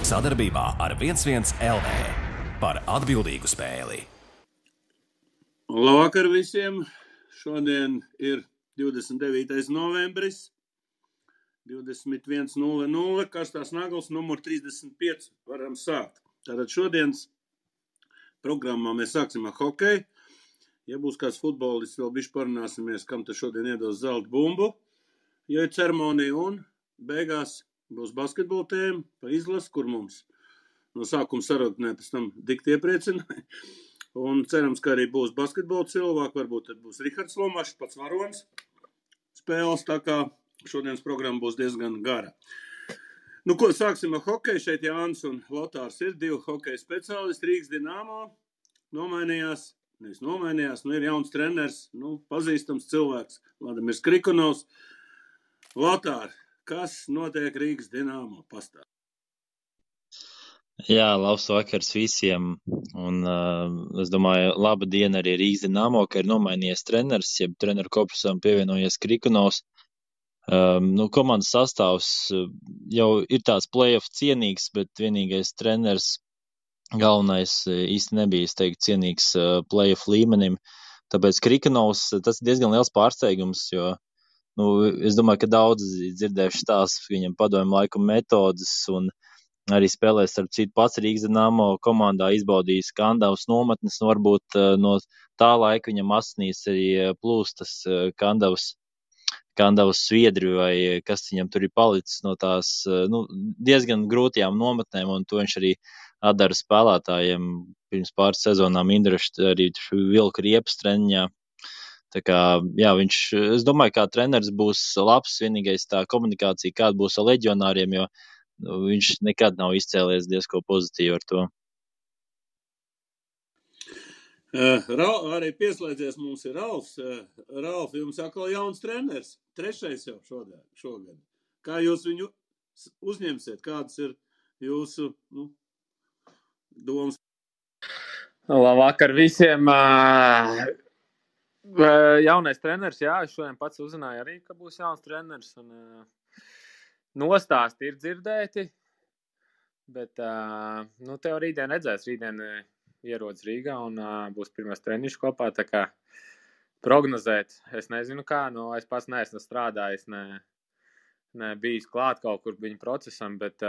Sadarbībā ar 11 LV par atbildīgu spēli. Labvakar visiem! Šodien ir 29. novembris, 21:00, Karstās Nagls, numur 35. Varam sākt. Tātad šodienas programmā mēs sāksim ar hokeju. Ja būs kāds futbolists, vēl bišķi parunāsimies, kam te šodien iedos zelta bumbu, jo ir ceremonija, un beigās būs basketbola tēma pa izlasi, kur mums no sākuma sarunē pēc tam dikti iepriecināja. Un cerams, ka arī būs basketbola cilvēki, varbūt tad būs Rihards Lomašs, pats varonis spēles, tā kā šodienas programma būs diezgan gara. Nu, ko sāksim ar hokeju? Šeit Jānis un Lotārs ir divi hokeja speciālisti. Rīgas Dinamo nomainījās, ir jauns treneris, pazīstams cilvēks, Vladimirs Krikonovs. Lotār, kas notiek Rīgas Dinamo? Pastāv. Jā, labs vakars visiem, un es domāju, laba diena arī Rīgas Dinamo, ka ir nomainījies treneris, jeb treneru korpusam pievienojies Krikonovs. Komandas sastāvs jau ir tāds play-off cienīgs, bet vienīgais treneris galvenais īsti nebija, es teiktu, cienīgs play-off līmenim, tāpēc Krikonovs, tas ir diezgan liels pārsteigums, jo es domāju, ka daudz dzirdējuši stāstus, viņam padomju laiku metodas un arī spēlēs ar citu pats Rīgas Dinamo komandā izbaudījis Kandavas nometnes, varbūt no tā laika viņam asinīs arī plūstas Kandavas sviedri vai kas viņam tur ir palicis no tās diezgan grūtajām nometnēm, un to viņš arī atdara spēlētājiem pirms pāris sezonām Indrašt arī vilka riepas treniņā. Tā kā, jā, es domāju, kā treneris būs labs, vienīgais tā komunikācija, kāda būs ar leģionāriem, jo viņš nekad nav izcēlies diezko pozitīvi ar to. Arī pieslēdzies mums ir Ralfs. Ralf, jums atkal jauns treneris, 3. jau šogad. Kā jūs viņu uzņemsiet? Kādas ir jūsu domas? Labvakar visiem! Jaunais treneris, jā, es šodien pats uzzināju arī, ka būs jauns treneris, un nostāsti ir dzirdēti, bet tev rītdien redzēs, rītdien ierodas Rīgā un būs pirmais treniņš kopā, tā kā prognozēt, es nezinu kā, es pats neesmu strādājis, ne bijis klāt kaut kur viņa procesam, bet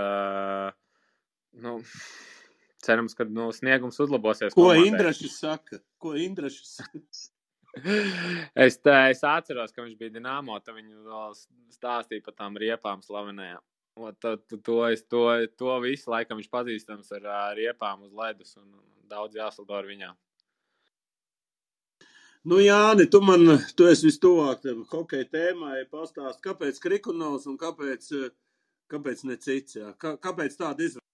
cerams, ka sniegums uzlabosies. Ko Indrašs saka? Es atceros, ka viņš bija Dinamo, tad viņu vēl stāstīja par tām riepām slavenējām. To visu laikam viņš pazīstams ar riepām uz ledus un daudz jāsaldo ar viņām. Jāni, tu esi vistuvāk hokeja tēmai, pastāst, kāpēc Krikonovs un kāpēc ne cits, jā? Kāpēc tāda izvēle?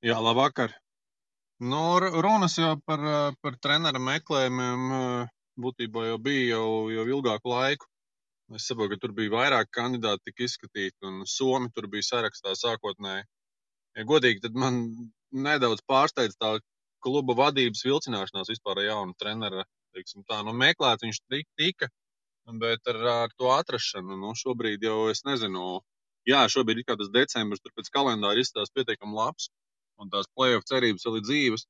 Jā, labvakar. Runas jau par trenera meklējumiem būtībā jau bija jau ilgāku laiku. Es saprotu, ka tur bija vairāk kandidāti tika izskatīti, un Somi tur bija sarakstā sākotnēji. Ja godīgi, tad man nedaudz pārsteidz tā kluba vadības vilcināšanās vispār jaunu trenera, teiksim tā. Meklēt viņš tika, bet ar to atrašanu, šobrīd jau es nezinu. Jā, šobrīd ir kā tas decembris, tur pēc kalendāra izstās pietiekami labs, un tās play-off cerības vēl ir dzīves.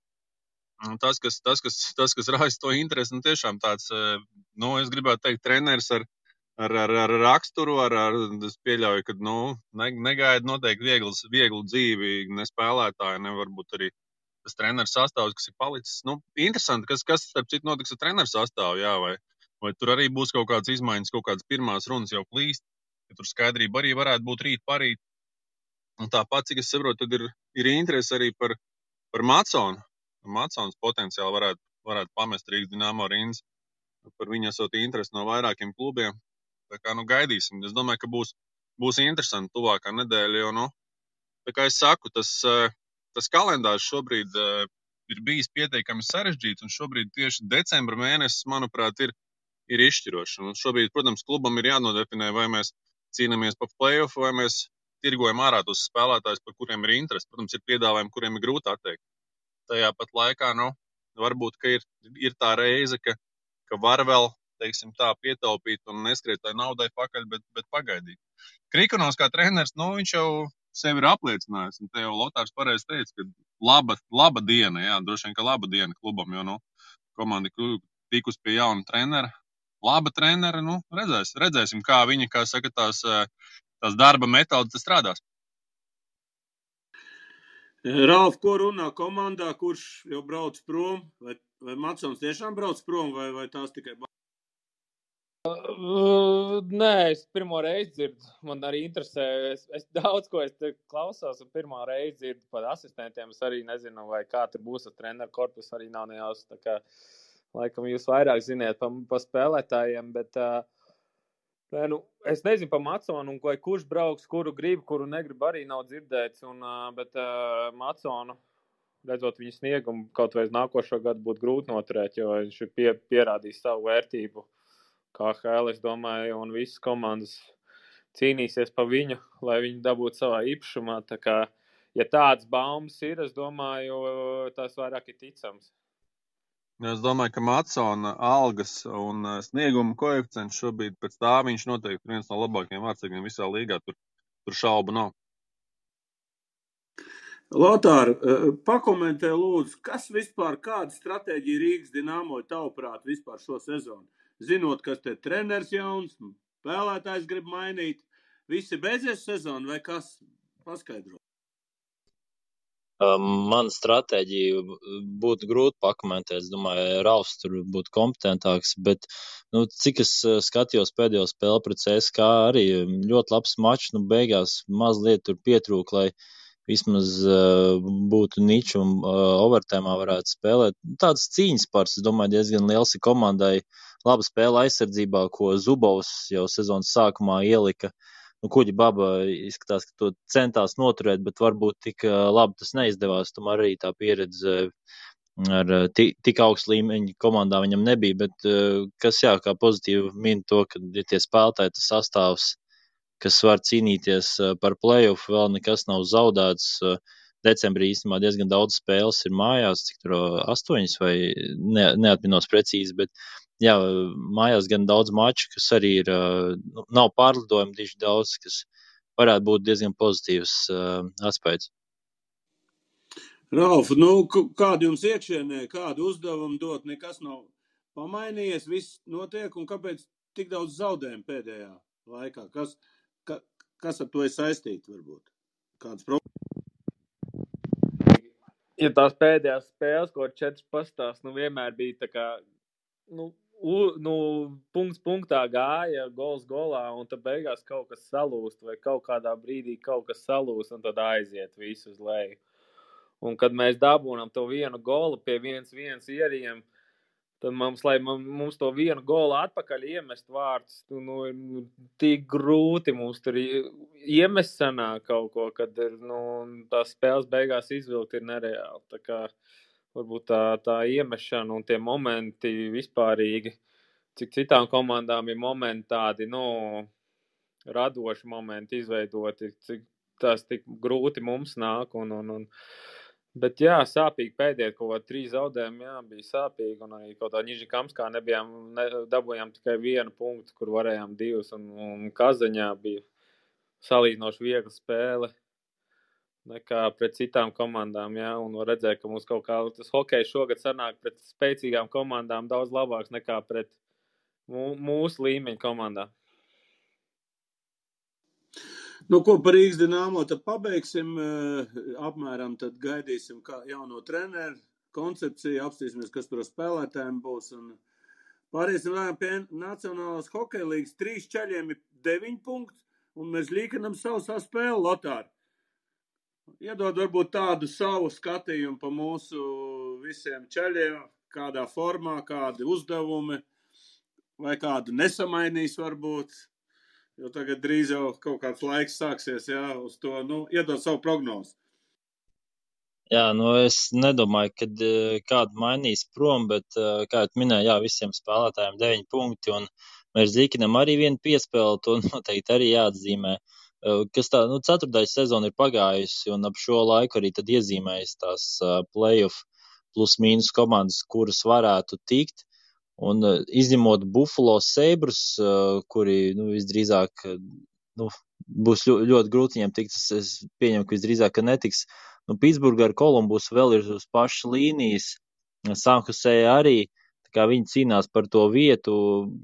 Tas, kas raisa to interesi, tiešām tāds, es gribētu teikt, treneris ar raksturu, es pieļauju, ka, negaida noteikti vieglu dzīvi, ne spēlētāji, ne varbūt arī tas treneris sastāvs, kas ir palicis. Interesanti, kas starp citu notiks ar treneru sastāvu, jā, vai tur arī būs kaut kādas izmaiņas, kaut kādas pirmās runas jau plīst, ka tur skaidrība arī varētu būt rīt parīt. Un tāpat, cik es saprotu, tad ir interesi arī par Maconu. Macons potenciāli varētu pamest Rīgas Dinamo rindas. Par viņu esot interesi no vairākiem klubiem. Tā kā, gaidīsim. Es domāju, ka būs interesanti tuvākā nedēļa, jo, tā kā es saku, tas kalendārs šobrīd ir bijis pietiekami sarežģīts, un šobrīd tieši decembra mēnesis, manuprāt, ir izšķirošs. Un šobrīd, protams, klubam ir jānodefinē, vai mēs cīnāmies pa play-off, vai mēs tirgojam ārā tos spēlētājus, par kuriem ir interesi. Protams, ir piedāvājumi, kuriem ir grūti atteikt. Tajā pat laikā, varbūt, ka ir tā reize, ka var vēl, teiksim tā, pietaupīt un neskriet tai naudai pakaļ, bet pagaidīt. Krikonovs kā treneris, viņš jau sevi ir apliecinājis. Un te jau Lotārs pareizi teica, ka laba diena, jā, droši vien, ka laba diena klubam, jo, komanda tikus pie jauna trenera. Laba trenera, redzēsim, kā viņa, kā saka, tās darba metodas strādās. Ralf, ko runā komandā, kurš jau brauc prom? Vai Matsons tiešām brauc prom, vai tās tikai... Nē, es pirmo reizi dzirdu. Man arī interesē. Es daudz ko te klausos, un pirmā reize dzirdu par asistentiem. Es arī nezinu, vai kā tur būs ar treneru korpusu, arī nav nejaus. Tā kā, laikam, jūs vairāk ziniet pa spēlētājiem, bet es nezinu par Matsonu, un kurš brauks, kuru grib, kuru negrib, arī nav dzirdēts. Bet Matsonu, redzot viņu sniegumu, kaut vai uz nākošo gadu būtu grūti noturēt, jo viņš ir pierādījis savu vērtību. KHL, es domāju, un visas komandas cīnīsies pa viņu, lai viņi dabūtu savā īpašumā. Tā kā, ja tāds baumas ir, es domāju, tas vairāk ir ticams. Es domāju, ka Matsona algas un snieguma koeficients šobrīd pēc tā viņš noteikti ir viens no labākajiem vārdsargiem visā līgā. Tur šaubu nav. Lotār, pakomentē lūdzu, kas vispār, kāda stratēģija Rīgas Dinamo tavuprāt vispār šo sezonu? Zinot, kas te treneris jauns, spēlētājs grib mainīt, visi beidzies sezonu vai kas? Paskaidro. Man stratēģiju būtu grūti pakomentēt. Es domāju, Ralfs tur būtu kompetentāks, bet, cik es skatījos pēdējo spēli pret CSKA, arī ļoti labs mačs, beigās mazliet tur pietrūk, lai vismaz būtu niču un overtēmā varētu spēlēt. Tāds cīņas pars, es domāju, diezgan liels ir komandai. Laba spēle aizsardzībā, ko Zubovs jau sezonas sākumā ielika. Kuģi Baba izskatās, ka to centās noturēt, bet varbūt tik labi tas neizdevās. Tomēr arī tā pieredze ar tik augstu līmeņu komandā viņam nebija. Bet kas, kā pozitīvi min to, ka ir tie spēlētāji, tas sastāvs, kas var cīnīties par play-off, vēl nekas nav zaudēts. Decembrī īstenībā diezgan daudz spēles ir mājās, cik tur 8 vai neatminos precīzi, bet mājās gan daudz maču, kas arī ir, nav pārlidojumi diži daudz, kas varētu būt diezgan pozitīvs aspekts. Ralf, kādu jums iekšienē, kādu uzdevumu dot, nekas nav pamainījies, viss notiek, un kāpēc tik daudz zaudējumu pēdējā laikā? Kas ar to ir saistīti, varbūt? Kādas problēmas? Ja tās pēdējās spēles, ko 4 pastās, vienmēr bija tā kā, punkts punktā gāja, gols golā, un tad beigās kaut kas salūst, vai kaut kādā brīdī kaut kas salūst, un tad aiziet visu uz leju. Un kad mēs dabūnam to vienu golu pie 1-1 ieriem, tad mums to vienu golu atpakaļ iemest vārtus, tik grūti mums tur iemest sanāk kaut ko, kad tās spēles beigās izvilkt ir nereāli. Tā kā varbūt tā iemešana un tie momenti vispārīgi, cik citām komandām ir momenti tādi, radoši momenti izveidoti, cik tās tik grūti mums nāk Bet sāpīgi pēdējie kaut kā 3 zaudējumi, bija sāpīgi, un arī kaut tā Nižikamskā dabūjām tikai 1 punktu, kur varējām 2, un Kazaņā bija salīdzinoši viegla spēle nekā pret citām komandām, un var redzēt, ka mums kaut kā tas hokejs šogad sanāk pret spēcīgām komandām daudz labāks nekā pret mūsu līmeņa komandām. Ko par Rīgas Dinamo tad pabeigsim, apmēram tad gaidīsim kā jauno treneru koncepciju, apstīsimies, kas tur spēlētājiem būs, un pāriesim pie Nacionālās hokeja līgas. 3 čaļiem ir 9 punkti, un mēs līkinam savu spēli, Lotār. Iedod varbūt tādu savu skatījumu pa mūsu visiem čaļiem, kādā formā, kādi uzdevumi, vai kādu nesamainīs varbūt. Jo tagad drīz jau kaut kāds laiks sāksies, uz to, iedot savu prognozi. Es nedomāju, ka kādu mainīs prom, bet, kā jau minēju, visiem spēlētājiem 9 punkti, un mēs Zīkinam arī 1 piespēli, to noteikti arī jāatzīmē. Kas tā, 4. sezona ir pagājusi, un ap šo laiku arī tad iezīmējas tās play-off plus mīnus komandas, kuras varētu tikt. Un izņemot Buffalo Sabres, kuri visdrīzāk būs ļoti grūti viņiem tikt. Es pieņemu, ka visdrīzāk, ka netiks. Nu, Pitsburga ar Kolumbus vēl ir uz pašas līnijas. San Jose arī. Tā kā viņi cīnās par to vietu.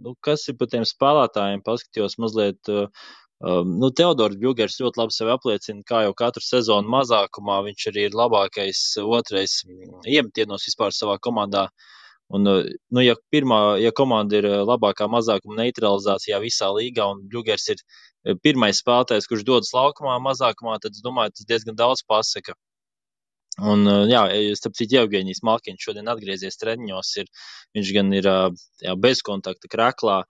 Nu, kas ir par tiem spēlētājiem? Paskatījos mazliet. Teodors Bjugers ļoti labi sevi apliecina, kā jau katru sezonu mazākumā. Viņš arī ir labākais otrais iemetienos vispār savā komandā. Un, ja komanda ir labākā mazākuma neutralizācijā visā līgā un Bjugers ir pirmais spēlētājs, kurš dodas laukumā mazākumā, tad es domāju, tas diezgan daudz pasaka. Un, starp citu, Jevgeņijs Malkiņš šodien atgriezies treniņos. Viņš gan ir bez kontakta kreklā,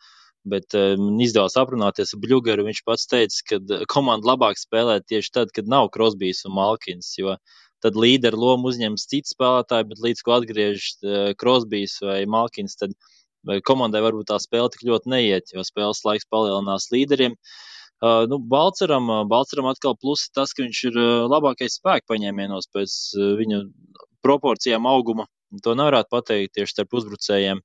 bet izdevās aprunāties ar Bļugeru. Viņš pats teica, ka komanda labāk spēlē tieši tad, kad nav Krosbijs un Malkins, jo tad līderu lomu uzņems cits spēlētāji, bet līdz ko atgriežas Krosbijs vai Malkins, tad komandai varbūt tā spēle tik ļoti neiet, jo spēles laiks palielinās līderiem. Balceram atkal plusi tas, ka viņš ir labākais spēku paņēmienos pēc viņu proporcijām auguma. To nevarētu pateikt tieši starp uzbrucējiem.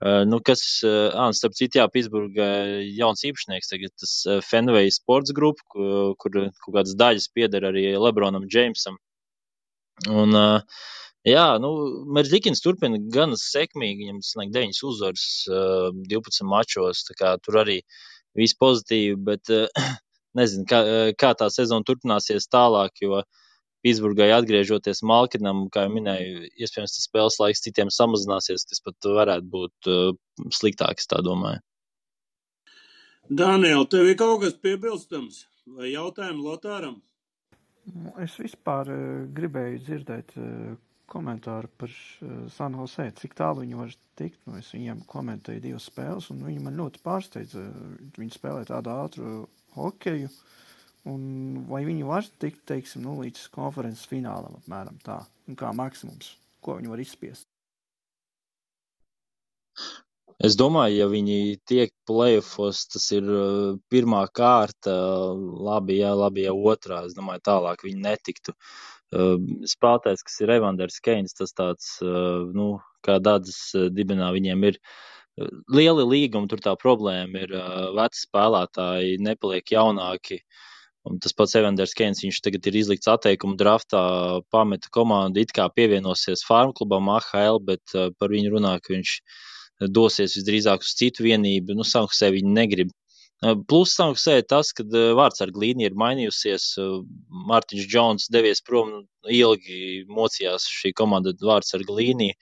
Starp citu, Pitsburga jauns īpašnieks tagad, tas Fenway Sports Group, kur kaut kādas daļas pieder arī Lebronam Jamesam. Un, Merzlikins turpina gan sekmīgi, viņam tas 9 uzvaras 12 mačos, tā kā tur arī viss pozitīvi, bet nezinu, kā tā sezona turpināsies tālāk, jo Pitsburgai atgriežoties Malkinam, kā jau minēju, iespējams tas spēles laiks citiem samazināsies, kas pat varētu būt sliktāks, tā domāju. Daniel, tev ir kaut kas piebilstams vai jautājumu Lotāram? Es vispār gribēju dzirdēt komentāru par San Jose, cik tālu viņi var tikt. Es viņiem komentēju 2 spēles, un viņi man ļoti pārsteidza. Viņi spēlē tādu ātru hokeju, un vai viņi var tikt, teiksim, līdz konferences finālam apmēram tā, un kā maksimums, ko viņi var izspiest. Es domāju, ja viņi tiek playoffos, tas ir pirmā kārta, labi, ja otrā. Es domāju, tālāk viņi netiktu. Spēlētājs, kas ir Evanders Keins, tas tāds, kā Dādzes dibinā, viņiem ir lieli līgumi, tur tā problēma ir veci spēlētāji, nepaliek jaunāki. Un tas pats Evanders Keins, viņš tagad ir izlikts atteikumu draftā, pameta komandu, it kā pievienosies Farm klubam AHL, bet par viņu runā, ka viņš dosies visdrīzāk uz citu vienību. San Jose viņi negrib. Plus San Jose tas, ka vārdsarga līnija ir mainījusies. Mārtiņš Džons devies prom, ilgi mocījās šī komanda vārdsarga līnija.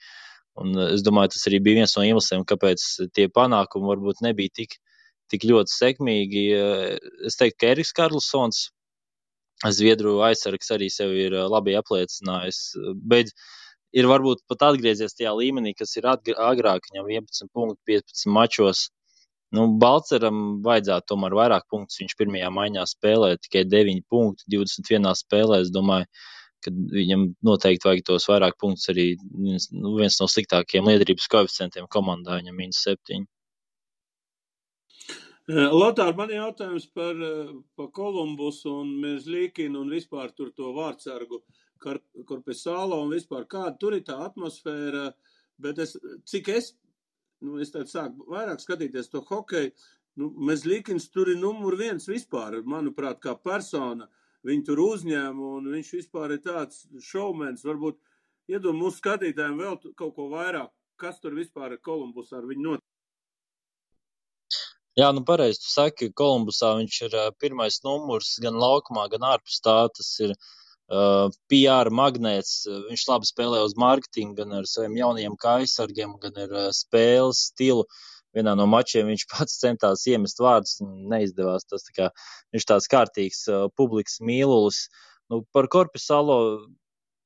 Un es domāju, tas arī bija viens no iemesliem, kāpēc tie panākumi varbūt nebija tik ļoti sekmīgi. Es teiktu, ka Eriks Karlsons, Zviedru aizsargs, arī sevi ir labi apliecinājis. Bet ir varbūt pat atgriezies tajā līmenī, kas ir agrāk, viņam 11 punkti 15 mačos. Balceram vajadzētu tomēr vairāk punktus. Viņš pirmajā maiņā spēlē tikai 9 punkti 21 spēlē. Es domāju, ka viņam noteikti vajag tos vairāk punktus arī viens no sliktākajiem liederības koeficientiem komandā, viņam -7. Lotār, man jautājums par Kolumbusu un Merzlikinu un vispār tur to vārdsargu Korpesalo un vispār kāda tur ir tā atmosfēra, bet cik es tad sāku vairāk skatīties to hokeju, Merzlikins tur ir numur 1 vispār, manuprāt, kā persona, viņu tur uzņēma un viņš vispār ir tāds šoumens, varbūt iedod mūsu skatītājiem vēl kaut ko vairāk, kas tur vispār ir Kolumbusā ar viņu notiek. Jā, pareizi tu saki, Kolumbusā viņš ir pirmais numurs gan laukumā, gan ārpus tā, tas ir PR magnēts, viņš labi spēlē uz marketingu, gan ar saviem jaunajiem kājsargiem, gan ar spēles stilu. Vienā no mačiem viņš pats centās iemest vārdus, neizdevās. Tas viņš tāds kārtīgs publikas mīlulis. Par Korpesalo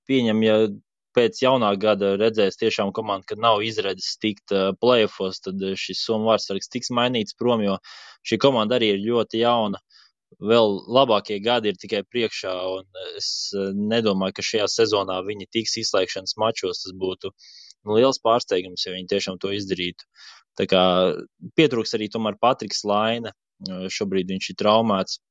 pieņem, ja pēc jaunā gada redzēs tiešām komanda, kad nav izredzes tikt playoffos, tad šis somu vārdsargs tiks mainīts prom, jo šī komanda arī ir ļoti jauna. Vēl labākie gadi ir tikai priekšā, un es nedomāju, ka šajā sezonā viņi tiks izslēgšanas mačos. Tas būtu liels pārsteigums, ja viņi tiešām to izdarītu. Tā kā pietrūks arī tomēr Patriks Laine. Šobrīd viņš ir traumēts.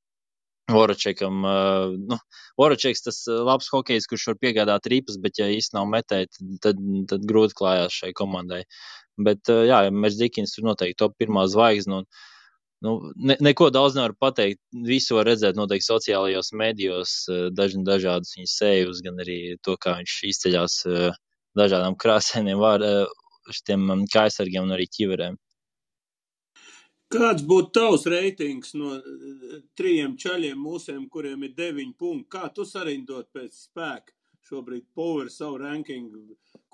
Voraceks tas labs hokejs, kurš var piegādāt ripas, bet ja īsti nav metēji, tad grūti klājās šai komandai. Bet Merzlikins tur noteikti top 1 zvaigzne, un neko daudz nevar pateikt. Visu var redzēt noteikti sociālajos medijos, dažādas viņa sejus, gan arī to, kā viņš izceļās dažādām krāsainiem šitiem kājsargiem un arī ķiverēm. Kāds būtu tavs reitings no 3 čaļiem mūsiem, kuriem ir 9 punkti? Kā tu sarindot pēc spēka šobrīd power savu rankingu?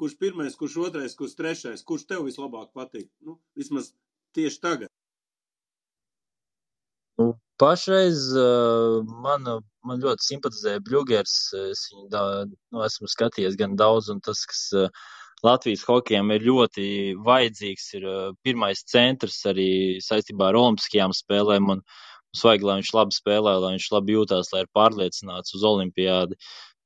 Kurš pirmais, kurš otrais, kurš trešais? Kurš tev vislabāk patīk? Vismaz tieši tagad. Pašreiz man ļoti simpatizē Bļugers. Es viņu esmu skatījies gan daudz, un tas, kas Latvijas hokejam ir ļoti vajadzīgs, ir pirmais centrs arī saistībā ar olimpiskajām spēlēm, un mums vajag, lai viņš labi spēlē, lai viņš labi jūtās, lai ir pārliecināts uz olimpiādi.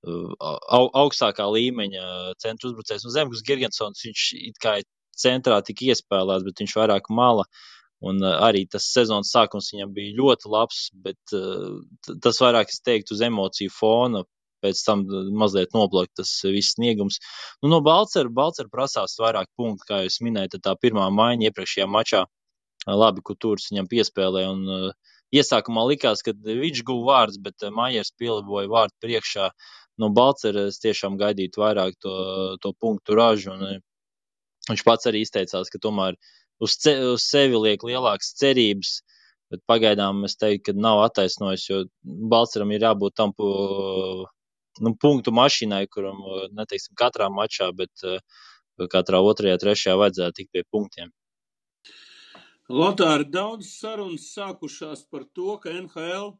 Augstākā līmeņa centra uzbrucējs. Zemgus Girgensons, viņš it kā centrā tika iespēlēts, bet viņš vairāk mala. Un arī tas sezonas sākums viņam bija ļoti labs, bet tas vairāk, es teiktu, uz emociju fona, pēc tam mazliet noplakt tas viss sniegums. No Balcera prasās vairāk punktu, kā jūs minējat, tā pirmā maiņa iepriekšējā mačā labi Kutūrs viņam piespēlē, un iesākumā likās, ka viņš guva vārds, bet Maiers pieliboja vārdu priekšā. No Balcera es tiešām gaidītu vairāk to punktu ražu, un viņš pats arī izteicās, ka tomēr uz sevi liek lielākas cerības, bet pagaidām es teiktu, ka nav attaisnojis, jo Balceram ir jābūt tam punktu mašīnai, kuram, neteiksim, katrā mačā, bet katrā otrajā, trešajā vajadzētu tikt pie punktiem. Lotāri, daudz sarunas sākušās par to, ka NHL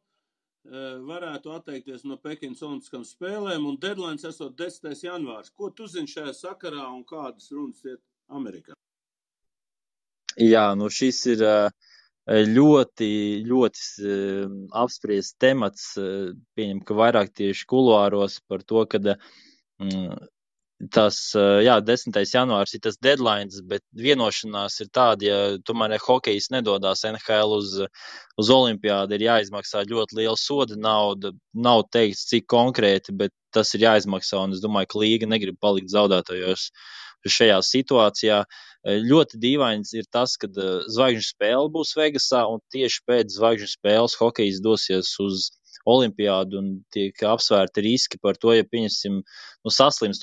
varētu atteikties no Pekinas olimpiskām spēlēm, un deadline esot 10. janvārs. Ko tu zini šajā sakarā un kādas runas iet Amerikā? Jā, šis ir ļoti, ļoti apspriests temats. Pieņem, ka vairāk tieši kuluāros par to, ka tas, 10. janvārs ir tas deadlines, bet vienošanās ir tāda, ja tomēr hokejs nedodās NHL uz olimpiādi, ir jāizmaksā ļoti liela soda nauda. Nav teikts, cik konkrēti, bet tas ir jāizmaksā, un es domāju, ka līga negrib palikt zaudētājos šajā situācijā. Ļoti dīvains ir tas, ka zvaigžņu spēle būs Vegasā, un tieši pēc zvaigžņu spēles hokejs dosies uz olimpiādu, un tiek apsvērti riski par to, ja pieņemsim, saslimst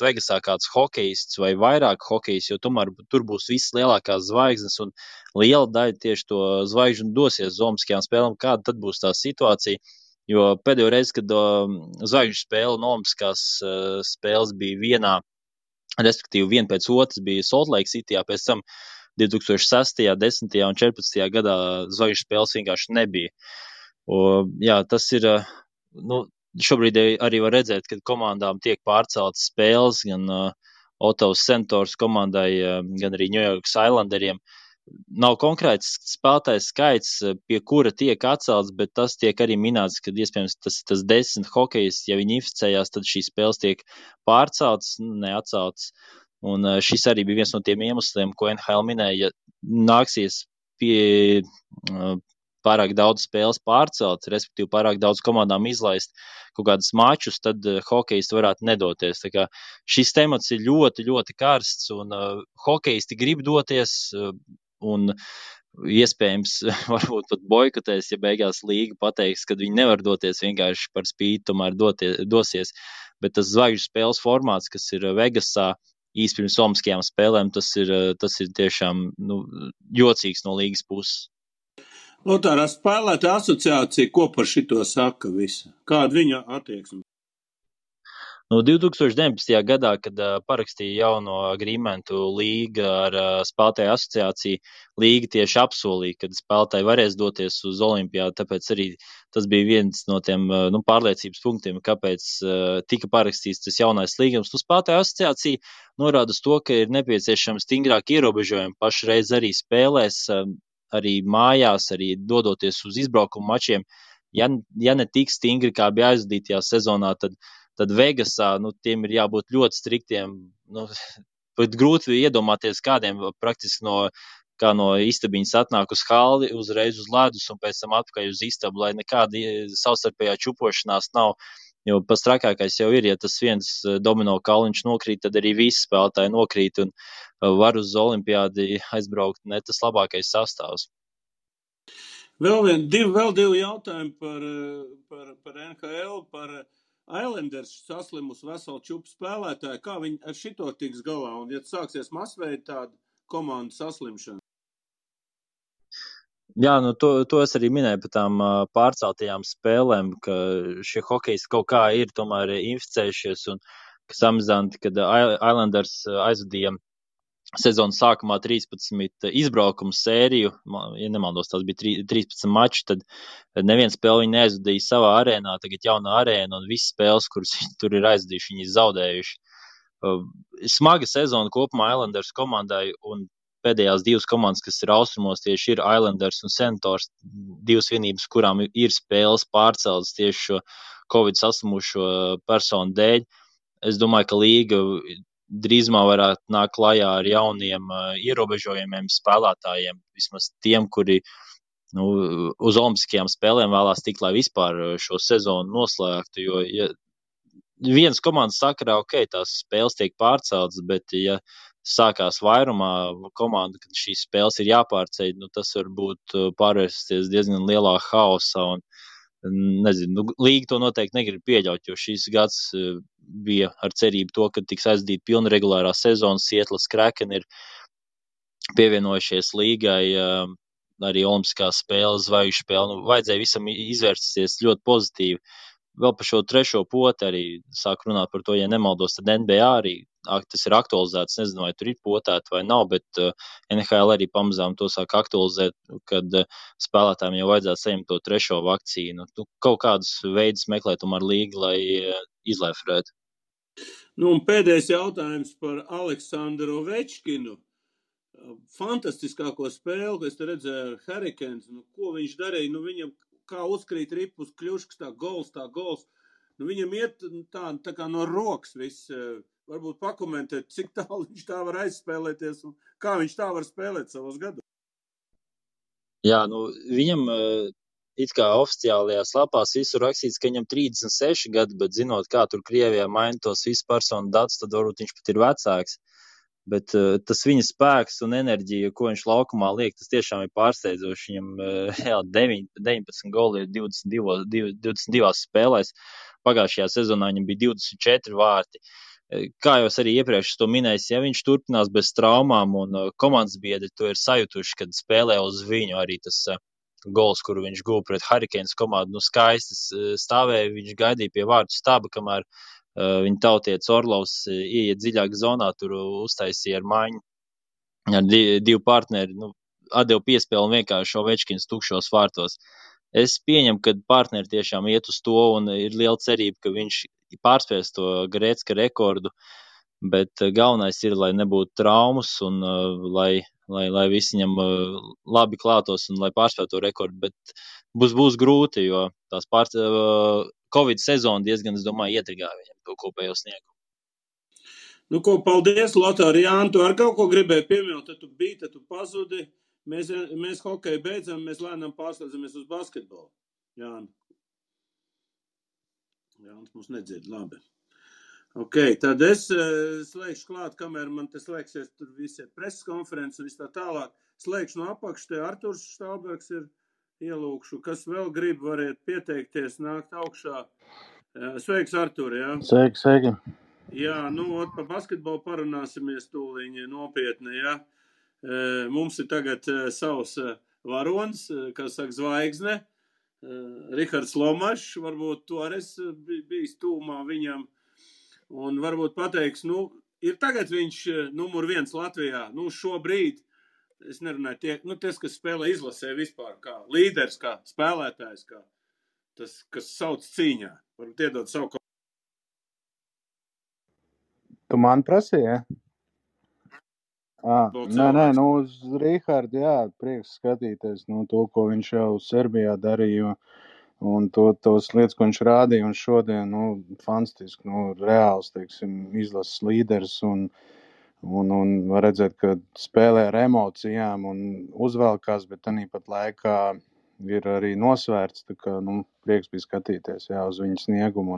Vegasā kāds hokejists vai vairāk hokejists, jo tomēr tur būs visas lielākās zvaigznes, un liela daļa tieši to zvaigžņu dosies uz olimpiskajām spēlēm. Kāda tad būs tā situācija? Jo pēdējo reizi, kad zvaigžņu spēle un olimpiskās spēles bija vienā, respektīvi viena pēc otras, bija Salt Lake Cityjā, pēc tam 2006., 10. un 14. gadā zvaigžņu spēles vienkārši nebija. Tas ir, šobrīd arī var redzēt, ka komandām tiek pārceltas spēles, gan Ottawas Senators komandai, gan arī New York Islanderiem. Nav konkrēts spēlētājs skaits, pie kura tiek atcelts, bet tas tiek arī minēts, ka iespējams tas 10 hokejs, ja viņi inficējās, tad šīs spēles tiek pārceltas, neatceltas. Un šis arī bija viens no tiem iemesliem, ko NHL minēja, ja nāksies pie pārāk daudz spēles pārcelt, respektīvi pārāk daudz komandām izlaist kaut kādus mačus, tad hokejisti varētu nedoties. Tā kā šis temats ir ļoti, ļoti karsts, un hokejisti grib doties, un iespējams varbūt pat boikotēs, ja beigās līga pateiks, ka viņi nevar doties vienkārši par spīti, tomēr dosies. Bet tas zvaigžņu spēles formāts, kas ir Vegasā, īsti pirms olimpiskajām spēlēm, tas ir tiešām jocīgs no līgas puses. Lotāra spēlētāja asociācija, ko par šito saka visa? Kāda viņa attieksme? 2019. gadā, kad parakstīja jauno agreementu līga ar spēlētāju asociāciju, līga tieši apsolīja, ka spēlētāji varēs doties uz olimpiādu, tāpēc arī tas bija viens no tiem pārliecības punktiem, kāpēc tika parakstīts tas jaunais līgums. Spēlētāju asociācija norāda uz to, ka ir nepieciešams stingrāk ierobežojumi pašreiz arī spēlēs, arī mājās, arī dodoties uz izbraukumu mačiem. Ja ne tik stingri, kā bija aizvadītajā sezonā, tad Vegasā, tiem ir jābūt ļoti striktiem. Pat grūti iedomāties kādiem praktiski kā no istabiņas atnāk uz halli, uzreiz uz ledus un pēc tam atpakaļ uz istabu, lai nekāda savstarpējā čupošanās nav. Jo pats trakākais jau ir, ja tas viens domino kauliņš nokrīt, tad arī visi spēlētāji nokrīt un var uz olimpiādi aizbraukt ne tas labākais sastāvs. Vēl divi jautājumi par NHL, par Islanders saslimus veselu čupu spēlētāju. Kā viņi ar šito tiks galā? Un ja sāksies masveida tāda komandu saslimšana? Jā, nu to es arī minēju par tām pārceltajām spēlēm, ka šie hokejisti kaut kā ir tomēr inficējušies un kas amizanti, kad Islanders aizvadīja sezonas sākumā 13 izbraukumu sēriju, ja nemaldos, tās bija 13 mači, tad neviens spēli viņi neaizvadīja savā arēnā, tagad jauna arēna un visas spēles, kuras tur ir aizvadījuši, viņi zaudējuši. Smaga sezona kopumā Islanders komandai un pēdējās divas komandas, kas ir austrumos, tieši ir Islanders un Senators, divas vienības, kurām ir spēles pārceltas tieši šo Covid saslimušo personu dēļ. Es domāju, ka līga drīzumā varētu nākt klajā ar jauniem ierobežojumiem spēlētājiem, vismaz tiem, kuri uz olimpiskajām spēlēm vēlās tikt, lai vispār šo sezonu noslēgtu, jo ja vienas komandas sakarā, ok, tās spēles tiek pārceltas, bet ja sākās vairumā komanda, kad šīs spēles ir jāpārceļ, tas var būt pārvērsties diezgan lielā haosā un nezinu, līga to noteikti negrib pieļaut, jo šīs gads bija ar cerību to, ka tiks aizdīta pilna regulārā sezona. Seattle's Kraken ir pievienojušies līgai arī olimpiskās spēles, zvaigžņu spēle. Vajadzēja visam izvērsties ļoti pozitīvi. Vēl par šo trešo poti arī sāk runāt par to, ja nemaldos, tad NBA arī tas ir aktualizēts. Nezinu, vai tur ir potēta vai nav, bet NHL arī pamazām to sāk aktualizēt, kad spēlētājiem jau vajadzētu saņemt to trešo vakcīnu. Kaut kādus veidus meklē tomēr līga, lai izlēfrētu. Un pēdējais jautājums par Aleksandru Ovečkinu. Fantastiskāko spēli, ko es te redzēju ar Hurricanes. Ko viņš darīja? Viņam kā uzkrīt ripus kļuškas, tā gols. Viņam iet tā kā no rokas viss. Varbūt pakomentēt, cik tālu viņš tā var aizspēlēties un kā viņš tā var spēlēt savos gados. Jā, viņam it kā oficiālajās lapās visur rakstīts, ka viņam 36 gadi, bet zinot, kā tur Krievijā maina tos visu personu datus, tad varbūt viņš pat ir vecāks. Bet tas viņa spēks un enerģija, ko viņš laukumā liek, tas tiešām ir pārsteidzoši. Viņam 19 goli ir 22 spēlēs. Pagājušajā sezonā viņam bija 24 vārti. Kā jau es arī iepriekš to minēju, ja viņš turpinās bez traumām un komandas biedri to ir sajutuši, kad spēlē uz viņu arī tas gols, kuru viņš guva pret Hurricanes komandu, skaisti stāvēja, viņš gaidīja pie vārtu staba, kamēr viņa tautietis Orlovs ieiet dziļāk zonā, tur uztaisīja ar maiņu ar divu partneri, atdeva piespēli un vienkārši Ovečkins tukšos vārtos. Es pieņemu, ka partneri tiešām iet uz to un ir liela cerība, ka viņš pārspēs to Gretzka rekordu, bet galvenais ir, lai nebūtu traumas un lai visi viņam labi klātos un lai pārspētu to rekordu, bet būs grūti, jo tās Covid sezona diezgan, es domāju, ietrigāja viņam to kopējo sniegumu. Paldies, Lotār. Jāni, tu ar kaut ko gribēji pieminēt, tad tu biji, tad tu pazudi. Mēs hokeju beidzam, mēs lēnām pārslēdzamies uz basketbolu. Jānis mums nedzird, labi. Ok, tad es slēgšu klāt, kamēr man te slēgsies tur visi preses konferences un viss tā tālāk. Slēgšu no apakš, te Arturs Štalbergs ir ielūkšu. Kas vēl grib, variet pieteikties, nākt augšā. Sveiks, Artur, jā? Sveiki. Jā, pa basketbolu parunāsimies tūliņi nopietni, jā. Mums ir tagad savs varonis, kā saka, zvaigzne. Rihards Lomašs, varbūt tu arī bijis tūmā viņam. Un varbūt pateiks, ir tagad viņš numur 1 Latvijā, šobrīd. Es nerunāju, ties, kas spēlē izlasē vispār, kā līderis, kā spēlētājs, kā tas, kas sauc cīņā. Varbūt iedot savu kaut. Tu man prasīji, ja? Nē, uz Rihardu, jā, prieks skatīties, to, ko viņš jau Serbijā darīja, un tos lietas, ko viņš rādīja, un šodien, fantastiski, reāls, teiksim, izlases līderis, un var redzēt, ka spēlē ar emocijām un uzvelkās, bet tanī pat laikā ir arī nosvērts, tā kā, nu, prieks bija skatīties, jā, uz viņu sniegumu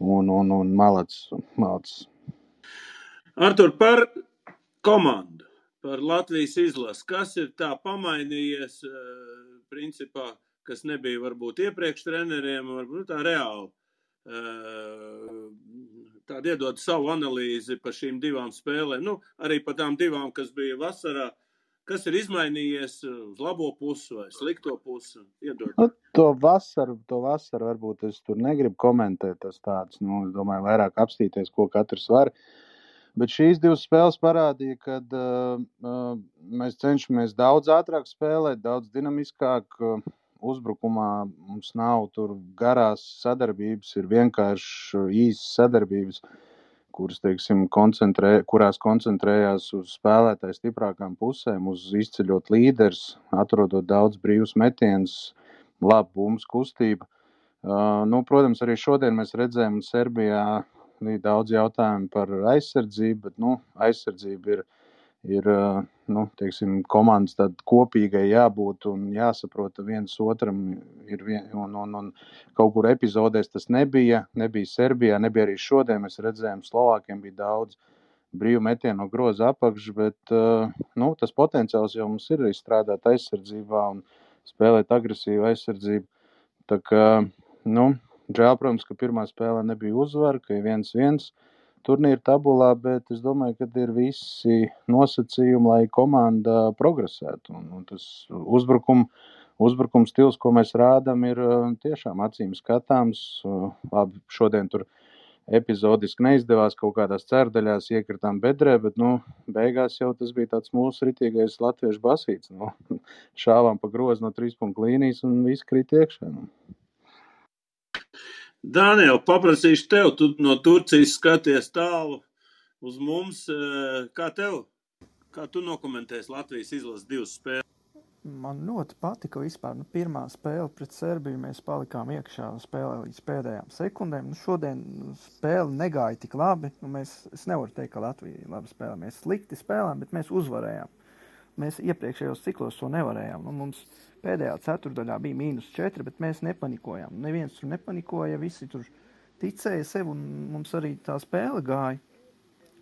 un malacis. Artur, par komandu, par Latvijas izlasi, kas ir tā pamainījies, principā, kas nebija varbūt iepriekš treneriem, varbūt tā reāli. Tāda iedod savu analīzi par šīm divām spēlēm, nu, arī par tām divām, kas bija vasarā. Kas ir izmainījies uz labo pusi vai slikto pusi? Iedod. Nu, to vasaru varbūt es tur negribu komentēt, tas tāds, nu, es domāju, vairāk apstīties, ko katrs var. Bet šīs divas spēles parādīja, kad mēs cenšamies daudz ātrāk spēlēt, daudz dinamiskāk. Uzbrukumā mums nav tur garās sadarbības, ir vienkārši īsas sadarbības, kuras, teiksim, kurās koncentrējās uz spēlētāju stiprākām pusēm, uz izceļot līderis, atrodot daudz brīvus metienus, labu bumbas kustību. Nu, protams, arī šodien mēs redzējām Serbijā daudz jautājumu par aizsardzību, bet, nu, aizsardzība ir nu, teiksim, komandas tāda kopīgai jābūt un jāsaprot viens otram un kaut kur epizodēs tas nebija Serbijā, nebija arī šodien, mēs redzējām, Slovākiem bija daudz brīvu metienu no groza apakš, bet nu, tas potenciāls jau mums ir izstrādāt aizsardzībā un spēlēt agresīvu aizsardzību. Tā kā, nu, žēl, protams, ka pirmā spēlē nebija uzvara, ka ir 1-1 turnīra tabulā, bet es domāju, ka ir visi nosacījumi, lai komanda progresētu. Un tas uzbrukuma stils, ko mēs rādām, ir tiešām acīm skatāms. Labi, šodien tur epizodiski neizdevās, kaut kādās cerdaļās iekritām bedrē, bet, nu, beigās jau tas bija tāds mūsu ritīgais latviešu basīts. Nu, šāvām pa grozu no 3 punktu līnijas un viss krīt iekšā. Nu. Daniel, paprasīšu tev, tu no Turcijas skaties tālu uz mums. Kā tu nokomentēsi Latvijas izlases divas spēles? Man ļoti patika vispār. Nu, pirmā spēle pret Serbiju mēs palikām iekšā spēlē līdz pēdējām sekundēm. Nu, šodien spēle negāja tik labi. Nu, es nevaru teikt, ka Latvija labi spēlē. Mēs slikti spēlējām, bet mēs uzvarējām. Mēs iepriekšējos ciklos to nevarējām. Nu, mums pēdējā ceturdaļā bija -4, bet mēs nepanikojām. Neviens tur nepanikoja, visi tur ticēja sev, un mums arī tā spēle gāja.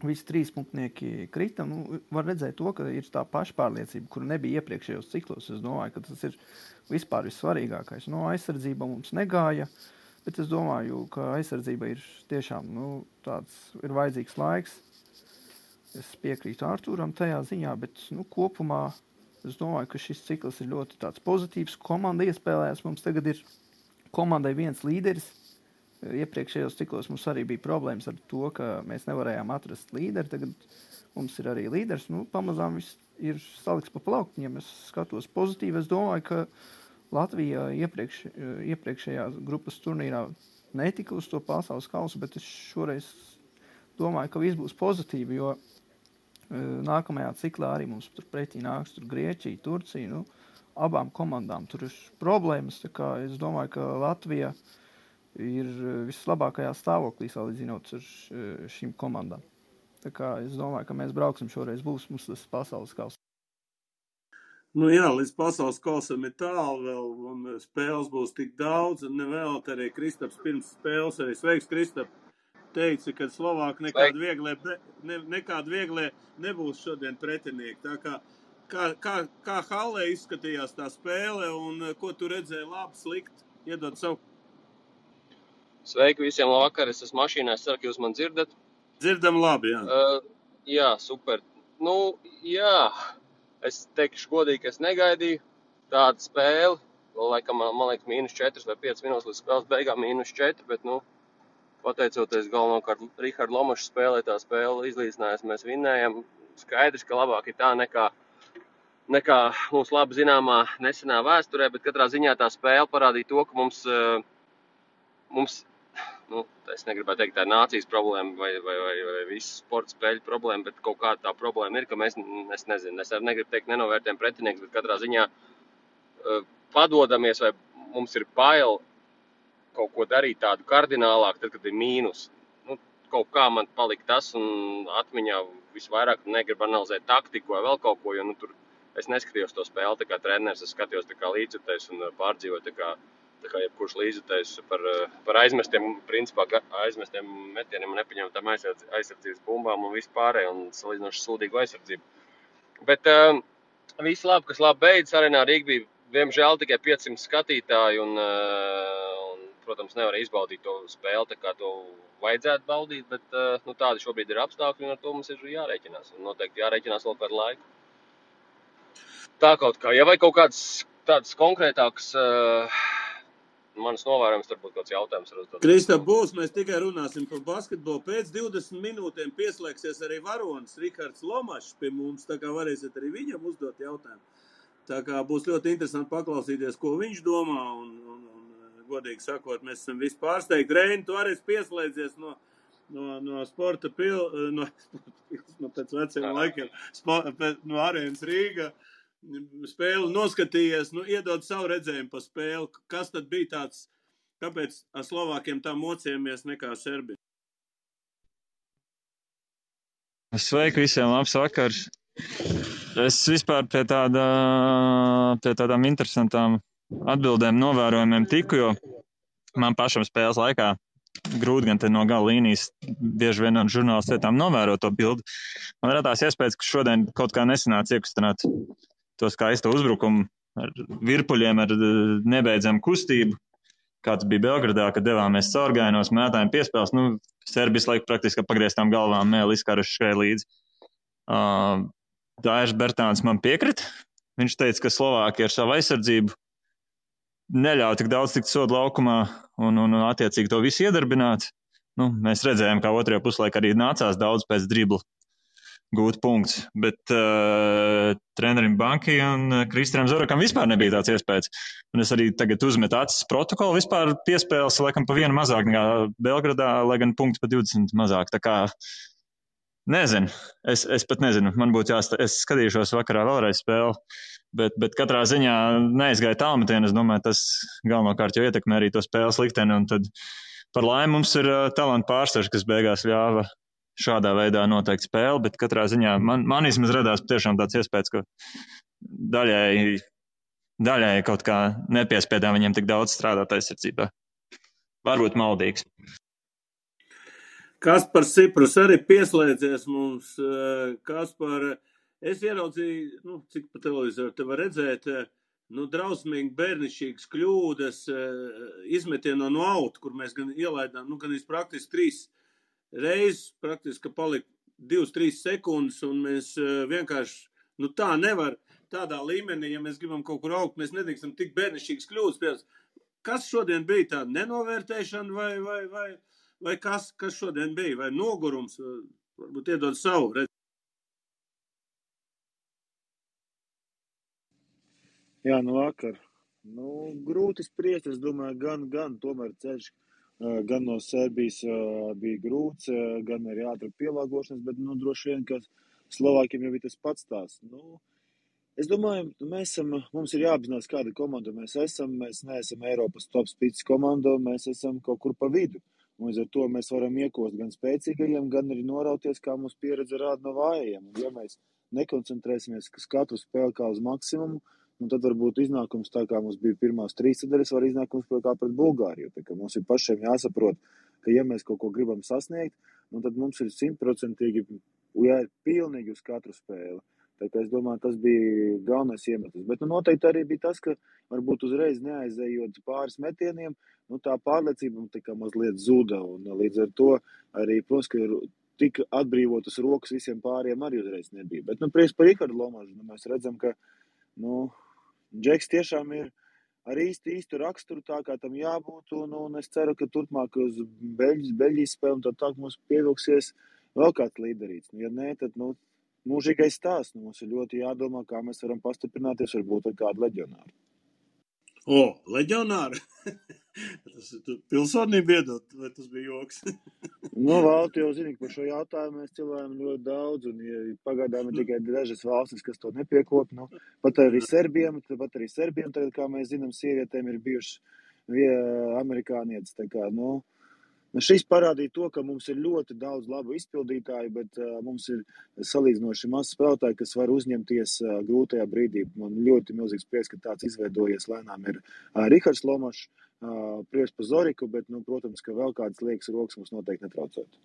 Visi 3 punktnieki krita. Nu, var redzēt to, ka ir tā pašpārliecība, kura nebija iepriekšējos ciklos. Es domāju, ka tas ir vispār vissvarīgākais. No aizsardzība mums negāja, bet es domāju, ka aizsardzība ir tiešām tāds ir vajadzīgs laiks. Es piekrītu Artūram tajā ziņā, bet kopumā es domāju, ka šis cikls ir ļoti tāds pozitīvs. Komanda iespēlējās. Mums tagad ir komandai viens līderis. Iepriekšējos ciklos mums arī bija problēmas ar to, ka mēs nevarējām atrast līderi. Tagad mums ir arī līderis. Pamazām viss ir salikts pa plauktiņiem. Es skatos pozitīvi. Es domāju, ka Latvija iepriekšējā grupas turnīrā netika uz to pasaules kausu, bet es šoreiz domāju, ka viss būs pozitīvi, jo nākamajā ciklā arī mums tur pretī nāks Grieķija, Turcija. Abām komandām tur ir problēmas. Tā kā es domāju, ka Latvija ir vislabākajā stāvoklī salīdzinot ar šīm komandām. Tā kā es domāju, ka mēs brauksim šoreiz, būs mums tas pasaules kauss. Jā, līdz pasaules kausam ir tālu vēl, un spēles būs tik daudz, un nevēl arī Kristaps pirms spēles, arī sveiks, Kristap, teica, ka Slovāki nekādi vieglie nebūs šodien pretinieki. Tā kā hallē izskatījās tā spēle, un ko tu redzēji labi, slikti, iedod savu? Sveiki visiem, labvakar, es esmu mašīnā, es ceru, ka jūs man dzirdat. Dzirdam labi, jā. Jā, super. Jā, es teikšu godīgi, ka es negaidīju tādu spēli. Vēl laikam, man liekas, -4 vai 5 minūtes līdz spēles beigām -4, bet, pateicoties galvenokārt Riharda Lomaša spēlē, tā spēle izlīdzinājās, mēs vinnējam. Skaidrs, ka labāk ir tā nekā mums labi zināmā nesenā vēsturē, bet katrā ziņā tā spēle parādīja to, ka mums es negribētu teikt, tā ir nācijas problēma vai visu sporta spēļu problēma, bet kaut kāda tā problēma ir, ka mēs, es nezinu, es arī negribu teikt nenovērtējam pretinieks, bet katrā ziņā padodamies vai mums ir bail kaut ko darīt tādu kardinālāk, tad, kad ir mīnus. Kaut kā man palika tas un atmiņā visvairāk negribu analizēt taktiku vai vēl kaut ko, jo tur es neskatījos to spēli tā kā treneris, es skatījos tā kā līdzjutējs un pārdzīvoju tā kā jebkurš līdzjutējs par aizmestiem, principā aizmestiem metieniem un nepaņemtām aizsardzības bumbām un vispārēj un salīdzinoši sūdīgu aizsardzību. Bet viss labi, kas labi beidzas Arēnā Rīga, diemžēl tikai 500 skatītāji un protams, nevar izbaudīt to spēli, tā kā to vajadzētu baudīt, bet tādi šobrīd ir apstākļi un ar to mums ir jārēķinās. Un noteikti jārēķinās vēl kādu laiku. Tā kaut kā. Ja vai kaut kāds tāds konkrētāks manas novērojums, varbūt kāds jautājums var uzdot. Kristap, būs, mēs tikai runāsim par basketbolu. Pēc 20 minūtēm pieslēgsies arī varonis Rihards Lomašs pie mums, tā kā varēsiet arī viņam uzdot jautājumu. Tā kā būs ļoti interesanti paklausīties, ko viņš domā un godīgi sakot, mēs esam visi pārsteigti. Reini, tu arī pieslēdzies no sporta pēc veciem laikiem, no Arēnas Rīga. Spēli noskatījies, iedod savu redzējumu pa spēli. Kas tad bija tāds, kāpēc ar Slovākiem tā mocījāmies nekā Serbija? Sveiki visiem, labs vakars. Es vispār pie tādām interesantām atbildēm, novērojumiem tiku, jo man pašam spēles laikā grūti gan te no gala līnijas bieži vien no žurnālistu vietām novērot to bildi. Man radās iespējas, ka šodien kaut kā nesanāca iekustināt to skaisto uzbrukumu ar virpuļiem, ar nebeidzamu kustību, kāds bija Belgradā, kad devāmies caurgājienos, mētājiem piespēles. Serbijas laiku praktiski pagrieztām galvām Mēlis Karašs skrēja līdzi. Dairs Bertāns man piekrita. Viņš teica, ka Slovākija ar savu aizsardzību neļauj tik daudz tikt sodu laukumā un attiecīgi to visu iedarbināt. Mēs redzējām, kā otrajā puslaikā arī nācās daudz pēc dribla gūt punkts, bet trenerim Banki un Kristianam Zorakam vispār nebija tāds iespējas. Un es arī tagad uzmetu acis protokolu, vispār piespēles laikam pa vienu mazāk nekā Belgradā, lai gan punkti pa 20 mazāk. Tā kā nezinu, es pat nezinu, man būtu es skatīšos vakarā vēlreiz spēli, bet katrā ziņā neizgāja tālmetienu. Es domāju, tas galvenokārt jau ietekmē arī to spēles likteni, un tad par laimi mums ir talantu pārsvars, kas beigās ļāva šādā veidā noteikt spēli, bet katrā ziņā man vismaz radās patiešām tāds iespējas, ka daļai kaut kā nepiespiedām viņiem tik daudz strādāt aizsardzībā. Varbūt maldīgs. Kaspars Ciprus arī pieslēdzies mums. Kaspar, es ieraudzīju, cik pa televizoru te var redzēt, drausmīgi bērnišķīgas kļūdas, izmetieno no auta, kur mēs gan ielaidām, gan praktiski 3 reizes, praktiski palika 2-3 sekundes, un mēs vienkārši, tā nevar tādā līmenī, ja mēs gribam kaut kur augt, mēs nedrīkstam tik bērnišķīgas kļūdas. Kas šodien bija tāda nenovērtēšana vai kas šodien bija? Vai nogurums? Varbūt iedod savu redzi. Jā, vakar. Grūti spriest, es domāju, gan tomēr ceļš, gan no Serbijas bija grūts, gan arī ātri pielāgošanas, bet droši vien, ka Slovākiem jau bija tas pats tās. Es domāju, mums ir jāapzinās, kāda komanda mēs esam. Mēs neesam Eiropas top spīdis komanda, mēs esam kaut kur pa vidu. Un ar to mēs varam iekost gan spēcīgajiem, gan arī norauties, kā mums pieredze rāda no vājajiem. Un ja mēs nekoncentrēsimies uz katru spēli kā uz maksimumu, tad varbūt iznākums tā kā mums bija pirmās 3 sadaļas, var iznākums kā pret Bulgāriju. Tā kā mums ir pašiem jāsaprot, ka ja mēs kaut ko gribam sasniegt, tad mums ir 100% jāiet pilnīgi uz katru spēli. Tā kā es domāju, tas bija galvenais iemesls. Bet noteikti arī bija tas, ka varbūt uzreiz neaizējot pāris metieniem, tā pārliecība tā kā mazliet zuda. Un līdz ar to arī, protams, ka tik atbrīvotas rokas visiem pāriem arī uzreiz nebija. Bet prieks par Rihardu Lomašu. Mēs redzam, ka Džeks tiešām ir ar īstu raksturu tā, kā tam jābūt. Un es ceru, ka turpmāk uz Beļģijas spēli un tā mums pievilksies vēl kāds līderīts. Ja nē, tad mūžīgais stāsts. Mums ir ļoti jādomā, kā mēs varam pastiprināties varbūt ar kādu leģionāru. Leģionāru? Tas pilsonība iedot, vai tas bija joks? Valti jau zini, ka par šo jautājumu mēs cilvēkam ļoti daudz, un pagaidām ir tikai dažas valstis, kas to nepiekop. Pat arī Serbiem, tagad, kā mēs zinām, sievietēm ir bijušas amerikānietes. Tā kā, Šis parādīja to, ka mums ir ļoti daudz labu izpildītāju, bet mums ir salīdzinoši maz spēlētāji, kas var uzņemties grūtajā brīdī. Man ļoti milzīgs prieks, ka tāds izveidojies lēnām ir Rihards Lomašs, prieks par Zoriku, bet, protams, ka vēl kādas liekas rokas mums noteikti netraucētu.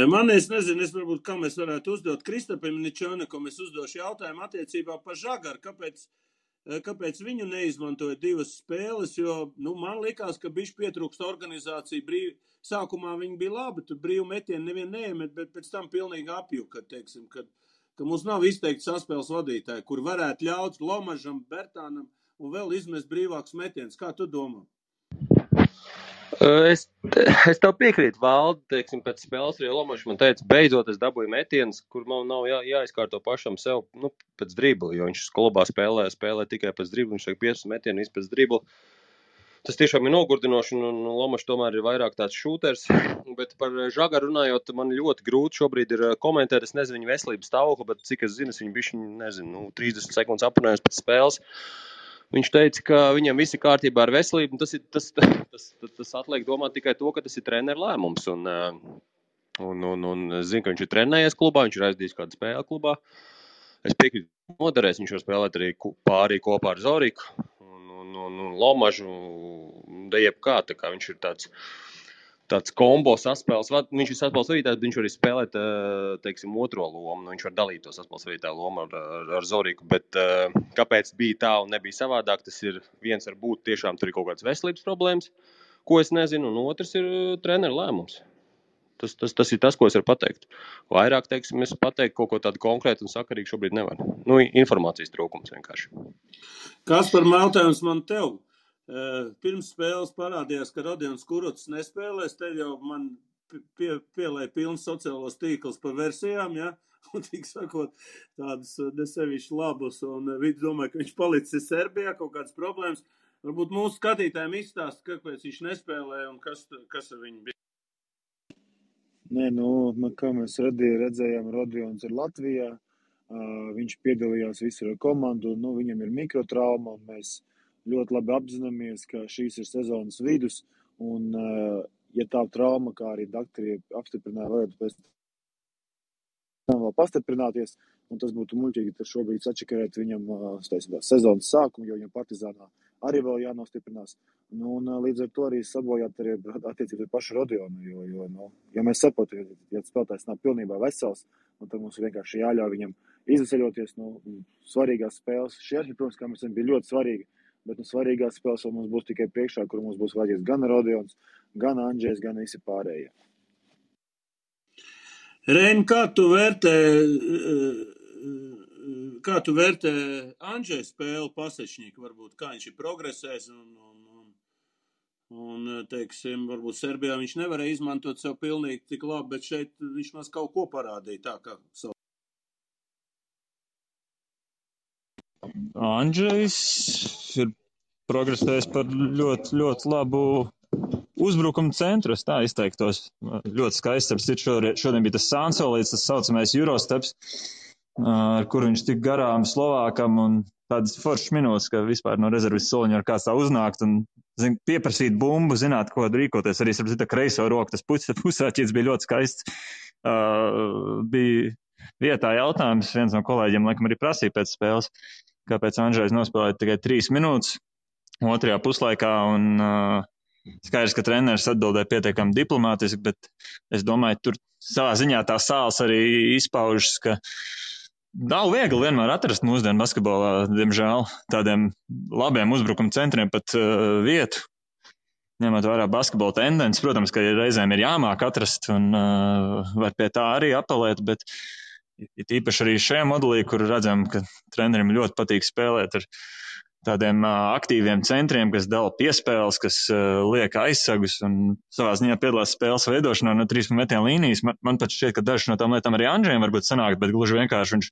Man, es nezinu, varbūt, kā mēs varētu uzdot Kristapam Ničonekam, es uzdošu jautājumu attiecībā par Žagaru, kāpēc viņu neizmantoja 2 spēles, jo, man likās, ka bišķi pietrūkst organizācija, sākumā viņi bija labi, tur brīvu metienu nevien neiemet, bet pēc tam pilnīgi apjuka, teiksim, ka mums nav izteikti saspēles vadītāji, kur varētu ļaut Lomažam, Bertānam un vēl izmest brīvākus metienus. Kā tu domā? Es tev piekrītu, Valdi, teiksim, pēc spēles arī Lomašs man teica, beidzot es dabūju metienus, kur man nav jāizkārto pašam sev, pēc dribla, jo viņš klubā spēlē tikai pēc dribla, viņš tiek 5 metienu pēc dribla. Tas tiešām ir nogurdinoši, un Lomašs tomēr ir vairāk tāds šūters, bet par Žagaru runājot, man ļoti grūti šobrīd ir komentēt, es nezinu viņa veselības stāvokli, bet cik es zinu, viņš bišķi, 30 sekundes aprunājums pēc spēles. Viņš teica, ka viņam viss ir kārtībā ar veselību, un tas atliek domāt tikai to, ka tas ir treneru lēmums. Un zinu, ka viņš ir trenējies klubā, viņš ir aizdījis kādu spēli klubā. Es piekrītu, noderēs, viņš var spēlēt arī pārī kopā ar Zoriku un Lomažu, jebkā, tā kā viņš ir tāds kombo saspēles, viņš ir saspēles vadītājs, bet viņš var arī spēlēt, teiksim, otro lomu, viņš var dalīt to saspēles vadītāju lomu ar Zoriku, bet kāpēc bija tā un nebija savādāk, tas ir viens varbūt tiešām tur ir kaut kāds veselības problēmas, ko es nezinu, un otrs ir treneru lēmums. Tas ir tas, ko es varu pateikt. Vairāk, teiksim, es pateikt kaut ko tādu konkrētu un sakarīgu šobrīd nevaru. Informācijas trūkums vienkārši. Kas par jautājums man tev? Pirms spēles parādījās, ka Rodions Kurucs nespēlēs, te jau man pielēja pilns sociālos tīkls par versijām, ja? Un tik sakot, tādas nesevišķi labus, un viņi domāja, ka viņš palicis Serbijā, kaut kādas problēmas. Varbūt mūsu skatītājiem izstāst, kāpēc viņš nespēlēja un kas ar viņu bija. Nē, kā mēs redzējām, Rodions ir Latvijā, viņš piedalījās visur ar komandu, viņam ir mikrotrauma, un mēs ļoti labi apzināmies, ka šīs ir sezonas vidus, un, ja tā trauma, kā arī doktori apstiprināja, varētu pēc tam vēl pastiprināties, un tas būtu muļķīgi, tad šobrīd sačakarēt viņam sezonas sākumu, jo viņam Partizānā arī vēl jānostiprinās. Un līdz ar to arī sabojāt arī attiecībā ar pašu Rodionu, jo ja mēs saprotam, ja spēlētājs nav pilnībā vesels, un tad mums vienkārši jāļauj viņam izceļoties svarīgās spēles. Šie arī, protams, kā mēs zinām, bija ļoti svarīgi, bet svarīgās spēles vēl mums būs tikai priekšā, kur mums būs vajadzīgs gan Rodions, gan Andžejs, gan visi pārējie. Reini, kā tu vērtē Andžeja spēli Pasečņika, varbūt, kā viņš ir progresējis un teiksim, varbūt Serbijā viņš nevarēja izmantot sev pilnīgi tik labi, bet šeit viņš maz kaut ko parādīja tā, kā savu. Andžejs ir progresējis par ļoti, ļoti labu uzbrukumu centru, es tā izteiktos. Ļoti skaists, šodien bija tas Sansolīts, tas saucamais Eurosteps, ar kur viņš tik garām Slovākam un tādas foršas minūtes, ka vispār no rezervis soliņa var kāds tā uznākt un pieprasīt bumbu, zināt, ko rīkoties. Arī starp citu kreiso roku, tas pusāķīts bija ļoti skaists. Bija vietā jautājums, viens no kolēģiem laikam arī prasīja pēc spēles, kāpēc Andžejs nospēlēja tikai 3 minūtes otrajā puslaikā, un skaidrs, ka treneris atbildēja pietiekami diplomātiski, bet es domāju, tur savā ziņā tā sāls arī izpaužas, ka nav viegli vienmēr atrast mūsdienu basketbolā, diemžēl, tādiem labiem uzbrukuma centriem pat vietu. Ņemot vērā basketbola tendences, protams, ka reizēm ir jāmāk atrast un var pie tā arī apelēt, bet īpaši arī šajā modelī, kur redzam, ka trenerim ļoti patīk spēlēt ar tādiem aktīviem centriem, kas dala piespēles, kas liek aizsagus un savā ziņā piedalās spēles veidošanā no 3 metienu līnijas. Man pat šķiet, ka dažas no tām lietām arī Andžejam varbūt sanāk, bet gluži vienkārši viņš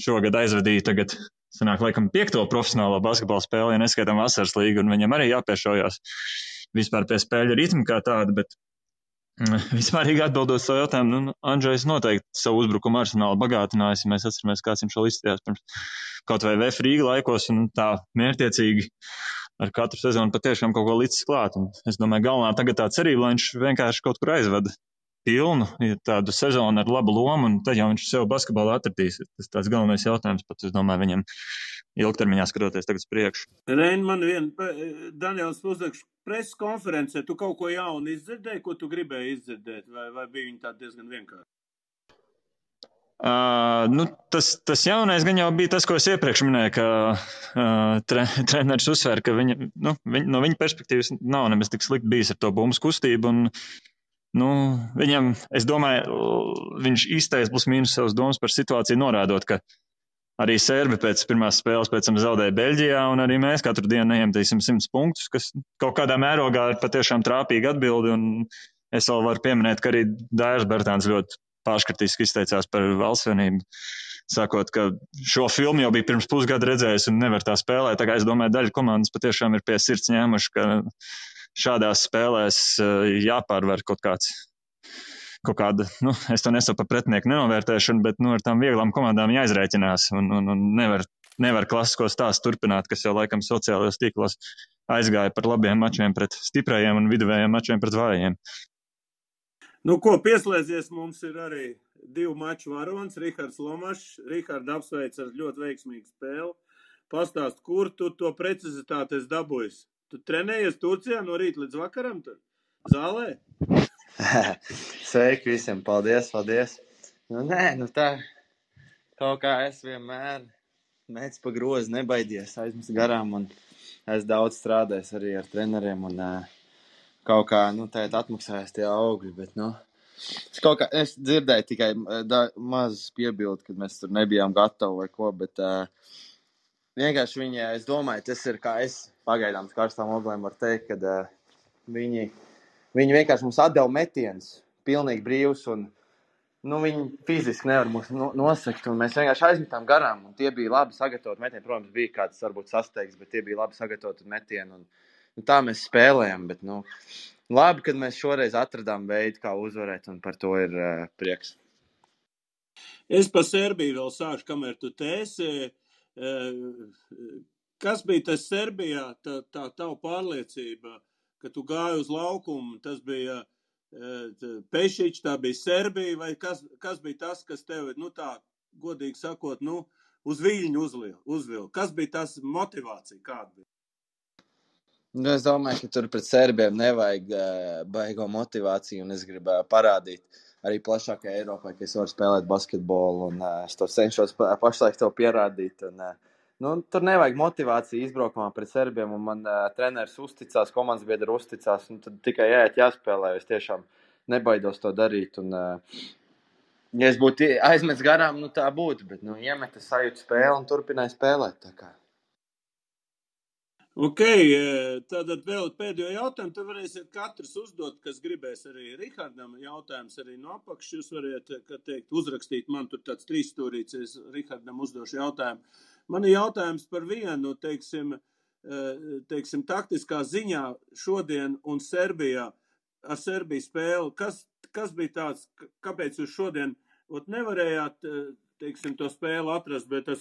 šogad aizvadīja tagad, sanāk, laikam 5. profesionālo basketbola spēli, ja neskaitam vasaras līgu, un viņam arī jāpiešaujās vispār pie spēļu ritma kā tāda, bet vispārīgi atbildot savu jautājumu, Andžejs noteikti savu uzbrukumu arsenālu bagātinājis, ja mēs atceramies, kāds viņš vēl izstījās pirms kaut vai VF Rīga laikos un tā mērķiecīgi ar katru sezonu patiešām kaut ko līdz klāt. Un es domāju, galvenā tagad tā cerība, lai viņš vienkārši kaut kur aizvada pilnu tādu sezonu ar labu lomu, un tad jau viņš sev basketbolu atradīs. Tas tāds galvenais jautājums pat, es domāju, viņam ilgtermiņā skatoties tagad uz priekšu. Reini, man Daniels Uzakš preses konferencē, tu kaut ko jaunu izdzirdēji, ko tu gribēji izdzirdēt, vai bija viņi tā diezgan vienkārši? Tas jaunais gan jau bija tas, ko es iepriekš minēju, ka treneris uzsver, ka no viņa perspektīvas nav nemaz tik slikti bijis ar to bumbas kustību. Un, viņam, es domāju, viņš izteica plus mīnus savas domas par situāciju, norādot, ka arī Serbi pēc pirmās spēles pēc tam zaudēja Beļģijā, un arī mēs katru dienu neiemetīsim 100 punktus, kas kaut kādā mērogā ir patiešām trāpīga atbildi. Un es vēl varu pieminēt, ka arī Dairis Bertāns ļoti pārškritiski izteicās par Valsts vienību, sakot, ka šo filmu jau bija pirms pusgada redzējis un nevar tā spēlēt. Tā kā es domāju, daļa komandas patiešām ir pie sirds ņēmuši, ka šādās spēlēs jāpārvar kaut kāda, es to nesaku par pretinieku nenovērtēšanu, bet ar tām vieglām komandām jāizrēķinās un nevar klasisko stāstu turpināt, kas jau laikam sociālajos tīklos aizgāja par labiem mačiem pret stiprajiem un viduvējiem mačiem pret vājiem. Pieslēdzies mums ir arī 2 maču varonis, Rihards Lomašs. Rihards apsveic ar ļoti veiksmīgu spēli. Pastāst, kur tu to precizitāti esi dabūjis? Tu trenējies Turcijā no rīta līdz vakaram tur? Zālē? Sveiki visiem, paldies. Tā kaut kā es vienmēr mēdz pa grozu nebaidies, aizmest garām un es daudz strādājis arī ar treneriem un kaut kā, tagad atmaksājās tie augļi, bet, es dzirdēju tikai maz piebildi, kad mēs tur nebijām gatavi vai ko, bet vienkārši viņi, es domāju, tas ir kā es pagaidām karstām oglēm var teikt, kad viņi vienkārši mums atdeva metienus, pilnīgi brīvs, un viņi fiziski nevar mūs nosakt, un mēs vienkārši aizmetām garām, un tie bija labi sagatavoti metieni. Protams, bija kāds varbūt sasteigs, bet tie bija labi sagatavoti metieni, un tā mēs spēlējam, bet, labi, kad mēs šoreiz atradām veidu, kā uzvarēt, un par to ir prieks. Es pa Serbiju vēl sāšu, kamēr tu tēsi. Kas bija tas Serbijā, tā tava pārliecība, ka tu gāji uz laukumu, tas bija Pešić, tā bija Serbija, vai kas bija tas, kas tevi, tā godīgi sakot, uz viļņu uzvilka? Kas bija tas motivācija, kāda bija? Es domāju, ka tur pret Serbiem nevajag baigo motivāciju, un es gribēju parādīt arī plašākai Eiropai, ka es varu spēlēt basketbolu, un es to cenšos pašlaik to pierādīt. Un, tur nevajag motivāciju izbraukumā pret Serbiem, un man treneris uzticās, komandas biedri uzticās, un tad tikai jāspēlē, es tiešām nebaidos to darīt. Un, ja es būtu aizmets garām, tā būtu, bet iemeta sajūtu spēli un turpināja spēlēt. Tā kā. Ok, tātad vēl pēdējo jautājumu, tu varēsiet katrs uzdot, kas gribēs arī Rihardam jautājums arī no apakšas. Jūs variet, uzrakstīt man tur tāds 3 stūrīts, es Rihardam uzdošu jautājumu. Man ir jautājums par vienu, teiksim, taktiskā ziņā šodien un Serbijā, ar Serbiju spēli. Kas bija tāds, kāpēc jūs šodien nevarējāt, teiksim, to spēli atrast, bet ar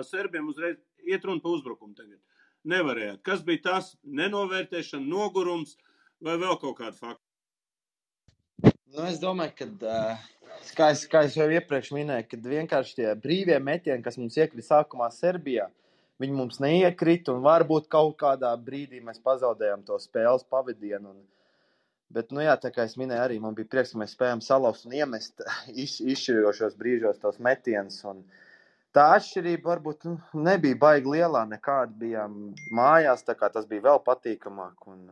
Serbiem uzreiz iet runa pa uzbrukumu tagad? Nevarējāt. Kas bija tas? Nenovērtēšana, nogurums vai vēl kaut kāda fakta? Es domāju, ka, kā es jau iepriekš minēju, kad vienkārši tie brīvie metieni, kas mums iekrita sākumā Serbijā, viņi mums neiekrita, un varbūt kaut kādā brīdī mēs pazaudējām to spēles pavadienu. Bet, tā kā es minēju arī, man bija prieks, ka mēs spējām salauzt un iemest izšķirošos brīžos tos metienus, un tā atšķirība varbūt nebija baigi lielā, nekāda bijām mājās, tā kā tas bija vēl patīkamāk, un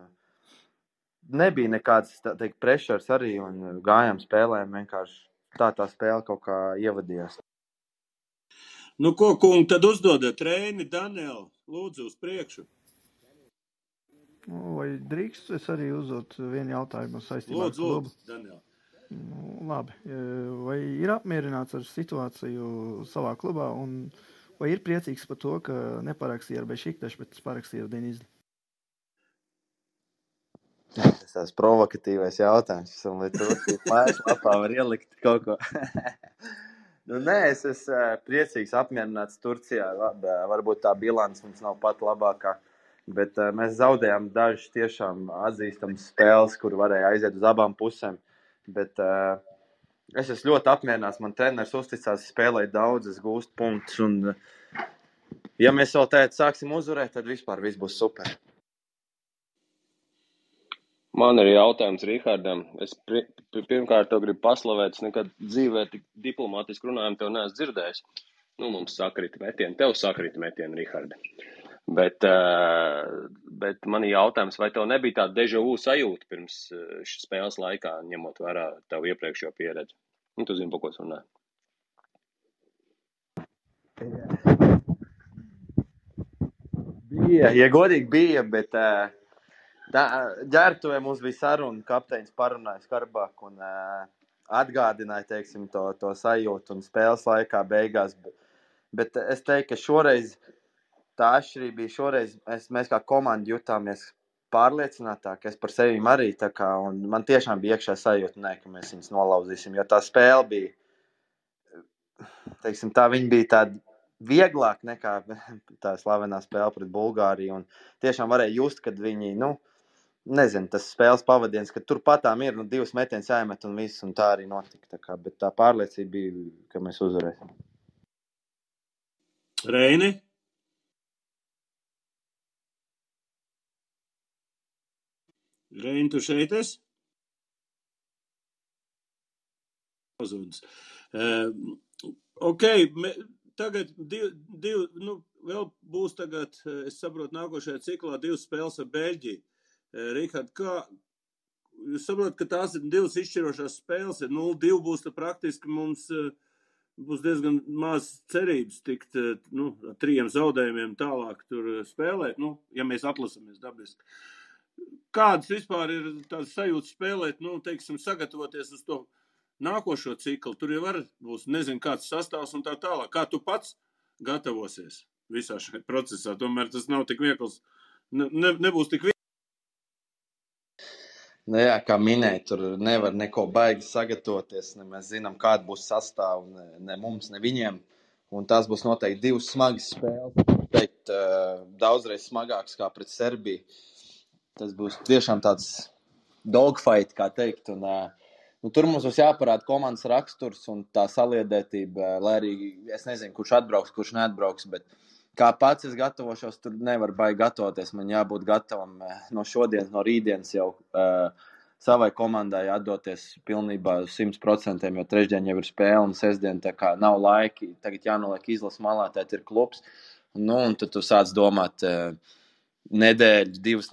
nebija nekāds, pressures arī, un gājām spēlēm vienkārši tā spēle kaut kā ievadījās. Ko, kungi, tad uzdodat Reini, Danielu, lūdzu uz priekšu. Vai drīkst es arī uzdot vienu jautājumu saistībā ar klubu? Lūdzu, Daniela. Labi. Vai ir apmierināts ar situāciju savā klubā, un vai ir priecīgs par to, ka neparakstīja ar Bešiktašu, bet parakstīja ar Denizli? Tas tās provokatīvais jautājums, un lai tu mājaslapā var ielikt kaut ko. Es esmu priecīgs, apmierināts Turcijā. Varbūt tā bilants mums nav pat labākā, Bet mēs zaudējām dažas tiešām atzīstamas spēles, kur varēja aiziet uz abām pusēm. Bet es esmu ļoti apmierināts. Man treneris uzticās, spēlēja daudz, es gūstu punktus. Un, ja mēs vēl tēt sāksim uzvarēt, tad vispār viss būs super. Man ir jautājums Rihardam. Es pirmkārt to gribu paslavēt. Es nekad dzīvē tik diplomātiski runājumu tev neesmu dzirdējis. Nu, mums sakrita metieni. Tev sakrita metieni, Riharda. Bet man ir jautājums, vai tev nebija tāda deja vu sajūta pirms šīs spēles laikā, ņemot vērā tev iepriekšējo pieredzi? Nu, tu zini, pa ko es runāju. Bija, ja godīgi bija, bet ģērbtuvē mums bija saruna, kapteinis parunāja skarbāk un atgādināja, teiksim, to sajūtu un spēles laikā beigās. Bet es teiktu, ka šoreiz tā atšķirība bija, šoreiz mēs kā komanda jutāmies pārliecinātāk, es par sevi arī tā kā, un man tiešām bija iekšā sajūta, ka mēs viņus nolauzīsim, jo tā spēle bija, teiksim, viņa bija tāda vieglāk nekā tā slavenā spēle pret Bulgāriju, un tiešām varēja just, kad viņi, nezinu, tas spēles pavadiens, ka turpatām ir 2 metienus jāiemet un viss, un tā arī notika. Bet tā pārliecība bija, ka mēs uzvarēsim. Reini? Reini, tu šeit esi? Ok, tagad vēl būs tagad, es saprotu, nākošajā ciklā 2 spēles ar Beļģiju. Rihard, kā jūs saprotat, ka tās ir 2 izšķirošās spēles, 0-2 būs, tad praktiski mums būs diezgan maz cerības tikt, ar 3 zaudējumiem tālāk tur spēlēt, ja mēs atlasamies dabiski. Kādas vispār ir tās sajūtas spēlēt, teiksim, sagatavoties uz to nākošo ciklu? Tur jau būs, nezinu, kāds sastāvs un tā tālāk. Kā tu pats gatavosies visā šajā procesā? Tomēr tas nav tik viegls, nebūs tik viegls. Jā, kā minēja, tur nevar neko baigi sagatavoties, ne mēs zinām, kāda būs sastāva, ne mums, ne viņiem. Un tās būs noteikti 2 smagas spēles, teikt, daudzreiz smagākas kā pret Serbiju. Tas būs tiešām tāds dogfight, kā teikt. Un, tur mums būs jāparāda komandas raksturs un tā saliedētība, lai arī es nezinu, kurš atbrauks, kurš neatbrauks, bet kā pats es gatavošos, tur nevar baigi gatavoties. Man jābūt gatavam no šodienas, no rītdienas jau savai komandai atdoties pilnībā 100%, jo trešdien jau ir spēle un sestdien tā kā nav laiki. Tagad jānoliek izlas malā, tēt ir klubs. Un tad tu sāc domāt 2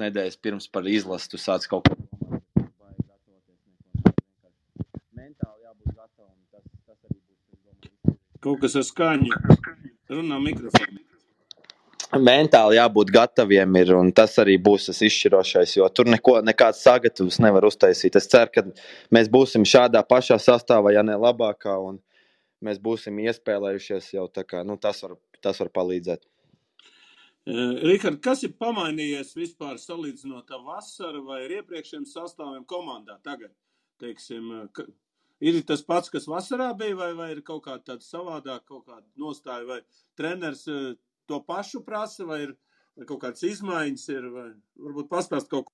nedēļas pirms par izlasu, tu sāc kaut ko domāt. Mentāli jābūt gatavam. Tas arī būs. Kaut kas ar skaņu. Runā mikrofonu. Mentāli jābūt gataviem ir, un tas arī būs tas izšķirošais, jo tur nekāds sagatavs nevar uztaisīt. Es ceru, ka mēs būsim šādā pašā sastāvā, ja ne labākā, un mēs būsim iespēlējušies jau tā kā, tas var palīdzēt. Rihard, kas ir pamainījies vispār salīdzinot ar vasaru vai ar iepriekšējiem sastāviem komandā tagad? Teiksim, ir tas pats, kas vasarā bija, vai ir kaut kāda tāda savādāk, kaut kāda nostāja, vai treneris to pašu prasa, vai ir kaut kādas izmaiņas, vai varbūt pastāst kaut ko?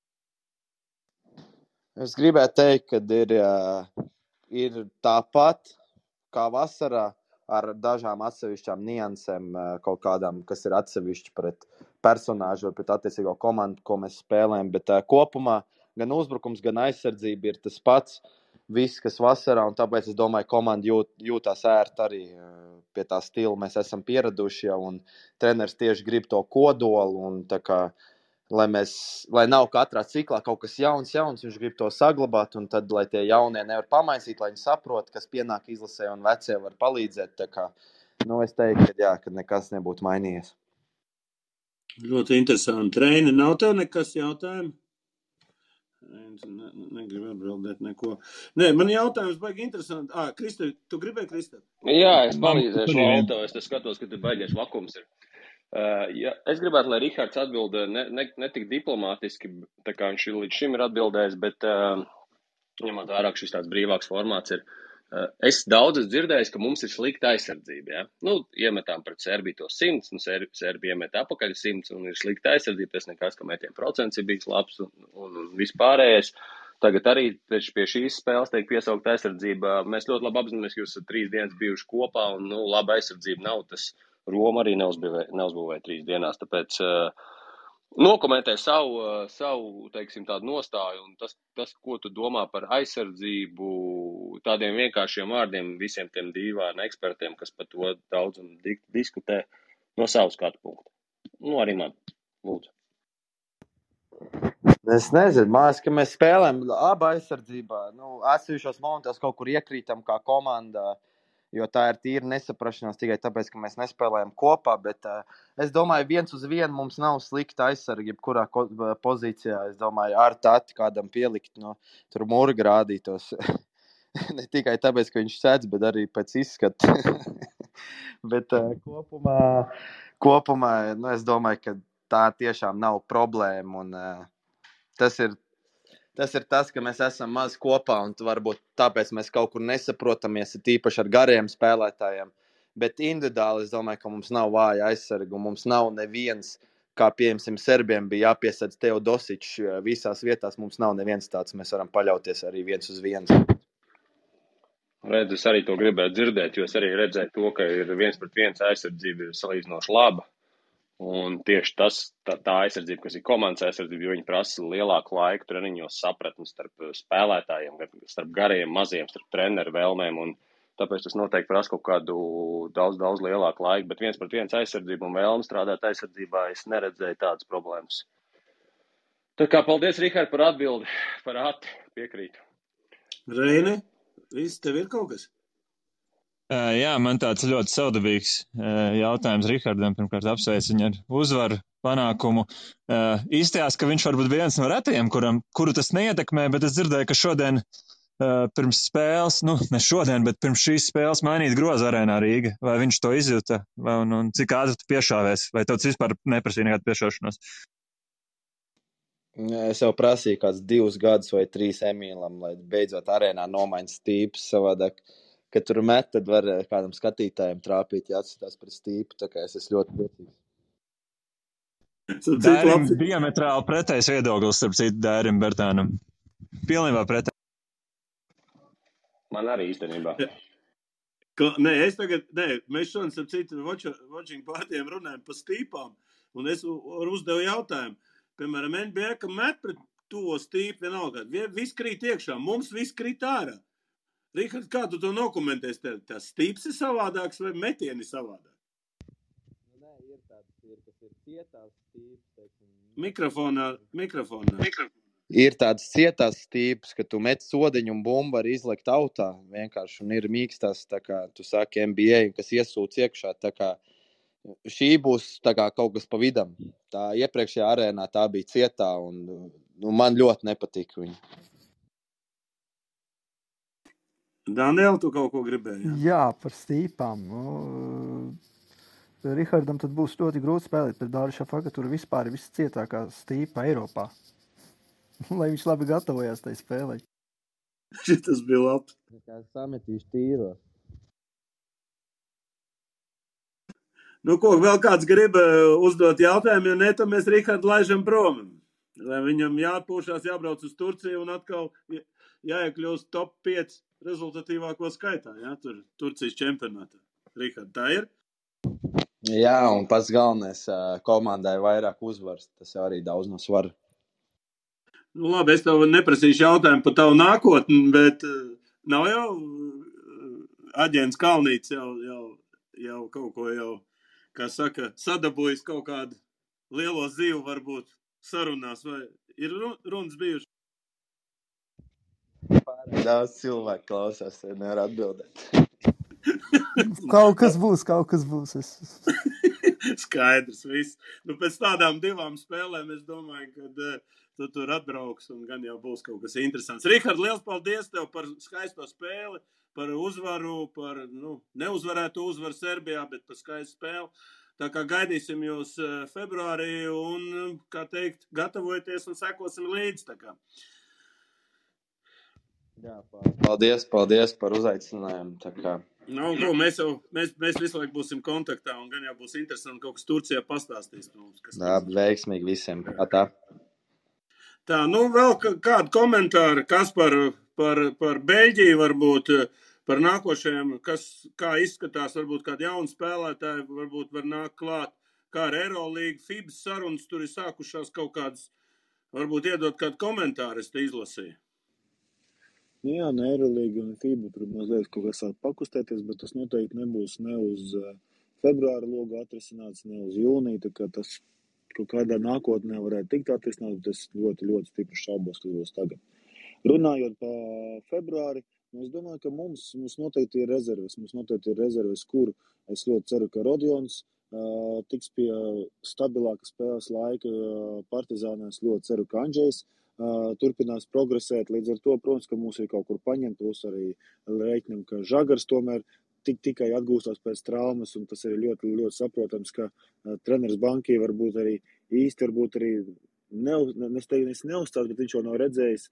Es gribētu teikt, ka ir tāpat kā vasarā ar dažām atsevišķām niansēm, kaut kādām, kas ir atsevišķi pret personāžu vai pret attiecīgo komandu, ko mēs spēlējam, bet kopumā gan uzbrukums, gan aizsardzība ir tas pats, viss, kas vasarā, un tāpēc es domāju, komanda jūtās ērti arī pie tā stila. Mēs esam pieraduši jau, un treneris tieši grib to kodolu, un tā kā, lai nav katrā ciklā kaut kas jauns, viņš grib to saglabāt, un tad, lai tie jaunie nevar pamaisīt, lai viņi saprot, kas pienāk izlasē, un vecie var palīdzēt. Tā kā, es teiktu, ka nekas nebūtu mainījies. Ļoti interesanti. Reini, nav tev nekas jautājumi? Negribu atbildēt neko. Nē, man jautājums baigi interesanti. Krista, tu gribēji, Krista? Jā, es palīdzēšu Valto. Es skatos, ka tu baigies vakums ir. Es gribētu, lai Rihards atbild ne tik diplomātiski, tā kā viņš līdz šim ir atbildējis, bet ņemot vērā, ka šis tāds brīvāks formāts ir. Es daudz esmu dzirdējis, ka mums ir slikta aizsardzība. Ja? Nu, iemetām pret Serbiju to 100, un Serbija iemet apakaļ 100, un ir slikta aizsardzība. Tas nekas, ka metienu procents ir bijis labs un vispārējais. Tagad arī pie šīs spēles tiek piesaukt aizsardzība. Mēs ļoti labi apzināmies, ka jūs esat 3 dienas bijuši kopā, un laba aizsardzība nav. Tas Roma arī neuzbūvēja 3 dienās, tāpēc nokomentē savu, teiksim, tādu nostāju, un tas, ko tu domā par aizsardzību, tādiem vienkāršiem vārdiem visiem tiem dīvaini ekspertiem, kas par to daudz un diskutē no savas skatu punkta. Arī man, lūdzu. Es nezinu, mājas, ka mēs spēlējam labu aizsardzībā. Atsevišķos momentos kaut kur iekrītam kā komanda, jo tā ir tīra nesaprašanās tikai tāpēc, ka mēs nespēlējam kopā, bet es domāju, 1-1 mums nav slikta aizsarga, jebkurā pozīcijā. Es domāju, ar tati kādam pielikt, tur Murga rādītos. Ne tikai tāpēc, ka viņš sēdz, bet arī pēc izskata. Bet kopumā es domāju, ka tā tiešām nav problēma, un tas ir tas, ka mēs esam maz kopā, un varbūt tāpēc mēs kaut kur nesaprotamies, tīpaši ar gariem spēlētājiem. Bet individuāli es domāju, ka mums nav vāja aizsarga, un mums nav neviens, kā piemēram Serbiem bija jāpiesadz Teodosičs visās vietās, mums nav neviens tāds, mēs varam paļauties arī 1-1. Redz, es arī to gribētu dzirdēt, jo es arī redzēju to, ka ir 1-1 aizsardzība ir salīdzinoši laba. Un tieši tā aizsardzība, kas ir komandas aizsardzība, jo viņi prasa lielāku laiku treniņos sapratni starp spēlētājiem, starp gariem, maziem, starp treneru vēlmēm, un tāpēc tas noteikti prasa kaut kādu daudz lielāku laiku, bet 1-1 aizsardzība un vēlme strādāt aizsardzībā, es neredzēju tādas problēmas. Tā kā paldies, Rihard, par atbildi, par piekrītu. Reini, viss tev ir kaut kas? Jā, man tāds ļoti savdabīgs jautājums Rihardam. Pirmkārt, apsveicu viņu ar uzvaru, panākumu. Izstājās, ka viņš varbūt viens no retajiem, kuru tas neietekmē, bet es dzirdēju, ka šodien pirms spēles, ne šodien, bet pirms šīs spēles mainīt groza arēnā Rīga. Vai viņš to izjuta? Un cik ātri tu piešāvies? Vai tev vispār neprasīja nekādu piešaušanos? Es jau prasīju kāds 2 gadus vai 3 Emīlam, lai beidzot arēnā nomaiņas stīpus savādāk. Kad tur met, tad var kādam skatītājiem trāpīt, ja atskatās pret stīpu, tā kā es esmu ļoti priecīgs. Dērim diametrāli pretējs viedoklis, starp citu Dērim Bertānam. Pilnībā pretējs. Man arī īstenībā. Mēs šodien, starp citu, watching pārtiem runājam par stīpām, un es uzdevu jautājumu. Piemēram, NBA, ka met pret to stīpu vienalga. Viss krīt iekšā, mums viss krīt ārā. Rihard, kā tu to nokomentēsi? Tas stīps ir savādāks vai metieni savādāk? Nē, ir tāds, kas ir cietās stīps. Mikrofonā. Ir tāds cietās stīps, ka tu met sodiņu un bumbu var izlekt autā vienkārši, un ir mīkstās, tā kā tu saki NBA, kas iesūc iekšā, tā kā šī būs tā kā kaut kas pa vidam. Tā iepriekšējā arēnā tā bija cietā, un man ļoti nepatika viņa. Daniel, tu kaut ko gribēji? Jā, par stīpām. Rihardam tad būs ļoti grūti spēlēt pret Dāru Šafaku, tur vispār ir viscietākā stīpa Eiropā. Lai viņš labi gatavojās tai spēlē. Šitas bija labs. Kā sametīšu tīros. Ko, vēl kāds grib uzdot jautājumu, ja ne, tad mēs Rihardu laižam prom. Lai viņam jāatpūšās, jābrauc uz Turciju un atkal jāiekļūst top 5 rezultatīvāko skaitā, ja, tur Turcijas čempionātā. Rihard, tā ir? Jā, un pats galvenais komandai vairāk uzvaras, tas jau arī daudz no svara. Labi, es tev neprasīšu jautājumu par tavu nākotni, bet nav jau aģents Kalnīts jau kaut ko jau, kā saka, sadabūjis kaut kādu lielo zīvu varbūt sarunās, vai ir runas bijuši? Daudz cilvēku klausās, nevar atbildēt. Kaut kas būs. Skaidrs, viss. Pēc tādām 2 spēlēm es domāju, ka tu tur atbrauks un gan jau būs kaut kas interesants. Rihard, liels paldies tev par skaisto spēli, par uzvaru, par neuzvarēto uzvaru Serbijā, bet par skaistu spēli. Tā kā gaidīsim jūs februārī un, kā teikt, gatavojieties un sekosim līdzi. Tā kā. Jā, paldies par uzaicinājumu. Tā kā. Ko, mēs visu laiku būsim kontaktā, un gan jau būs interesanti kaut kas Turcijā pastāstīs mums. Veiksmīgi visiem. Atā. Tā, vēl kādu komentāru, kas par Beļģiju varbūt, par nākošajiem, kā izskatās, varbūt kādi jauni spēlētāji, varbūt var nākt klāt, kā ar Eurolīgu, FIBA sarunas, tur ir sākušās kaut kādas, varbūt iedot kādu komentāru, es te izlasīju. Jā, ne Eurolīga un FIBA, tur mazliet kaut kas sāk pakustēties, bet tas noteikti nebūs ne uz februāra logu atrisināts, ne uz jūniju, tā kā tas kaut kādā nākotnē varētu tikt atrisināts, bet es ļoti, ļoti stipri šaubos, kas būs tagad. Runājot par februāri, es domāju, ka mums noteikti ir rezerves, kur es ļoti ceru, ka Rodions tiks pie stabilāka spēles laika Partizānā, es ļoti ceru, ka Andžejs turpinās progresēt, līdz ar to, protams, ka mums ir kaut kur paņemt, plus arī reiķinam, ka Žagars tomēr tikai atgūstās pēc traumas, un tas ir ļoti, ļoti saprotams, ka treneris Bankī varbūt arī neuzstās, bet viņš jau nav redzējis,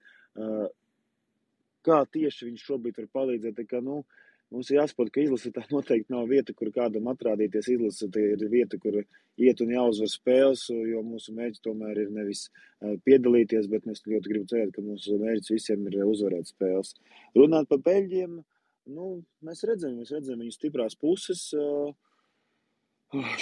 kā tieši viņš šobrīd var palīdzēt, tā kā, mums ir jāsaprot, ka izlase tā noteikti nav vieta, kur kādam atrādīties. Izlase tā ir vieta, kur iet un jāuzvar spēles, jo mūsu mērķis tomēr ir nevis piedalīties, bet mēs ļoti gribu cerēt, ka mūsu mērķis visiem ir uzvarēt spēles. Runāt par Beļģiem, mēs redzam viņu stiprās puses.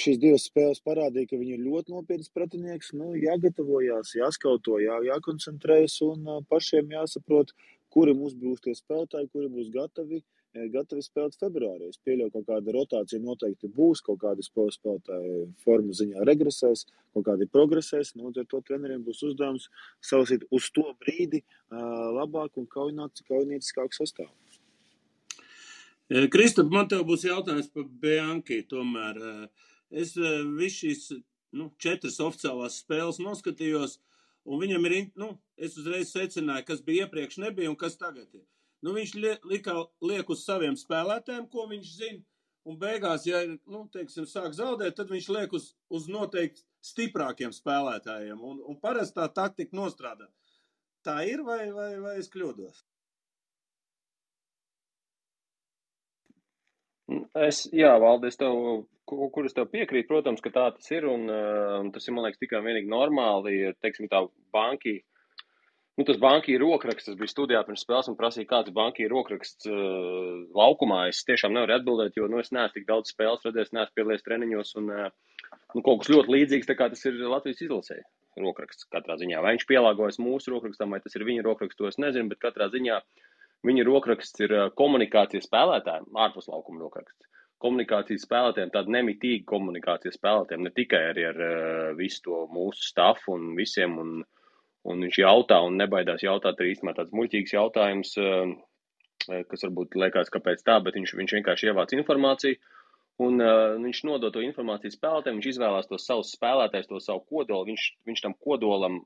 Šīs divas spēles parādīja, ka viņi ir ļoti nopietns pretinieks. Jāgatavojās, jāskauto, jākoncentrējas un pašiem jāsaprot, kuri mums būs tie spēlētāji, kuri būs gatavi spēlēt februārī. Es pieļauju, kaut kāda rotācija noteikti būs, kaut kādi spēlētāji formu ziņā regresēs, kaut kādi progresēs. Ar to treneriem būs uzdevums salasīt uz to brīdi labāk un kaujinieciskāku sastāvu. Kristap, man tev būs jautājums par Bianchi tomēr. Es visu šīs 4 oficiālās spēles noskatījos, un viņam ir, es uzreiz secināju, kas bija iepriekš nebija un kas tagad ir. Viņš liek uz saviem spēlētājiem, ko viņš zina, un beigās, ja sāk zaudēt, tad viņš liek uz noteikti stiprākiem spēlētājiem, un parasti tā taktika nostrādā. Tā ir vai es kļūdos? Valdi, kur es tev piekrītu, protams, ka tā tas ir, un tas ir, man liekas, tikai vienīgi normāli, teiksim tā Banki. Tas Banki rokraksts, tas bija studijā pirms spēles un prasīja, kāds Banki rokraksts laukumā. Es tiešām nevaru atbildēt, jo es neesmu tik daudz spēles redzējis, neesmu piedalījies treniņos un kaut kas ļoti līdzīgs, tā kā tas ir Latvijas izlasē rokraksts katrā ziņā. Vai viņš pielāgojas mūsu rokrakstam, vai tas ir viņa rokraksts, to es nezinu, bet katrā ziņā viņa rokraksts ir komunikācijas spēlētājiem, ārpus laukuma rokraksts. Komunikācijas spēlētājiem, tāda nemitīga komunikācijas spēlētājiem, ne tikai arī ar visu to mūsu stafu un visiem, un viņš jautā un nebaidās jautāt arī īstenībā tāds muļķīgs jautājums, kas varbūt liekas, kāpēc tā, bet viņš vienkārši ievāc informāciju, un viņš nodod to informāciju spēlētājiem, viņš izvēlās tos savus spēlētājus, to savu kodolu, viņš tam kodolam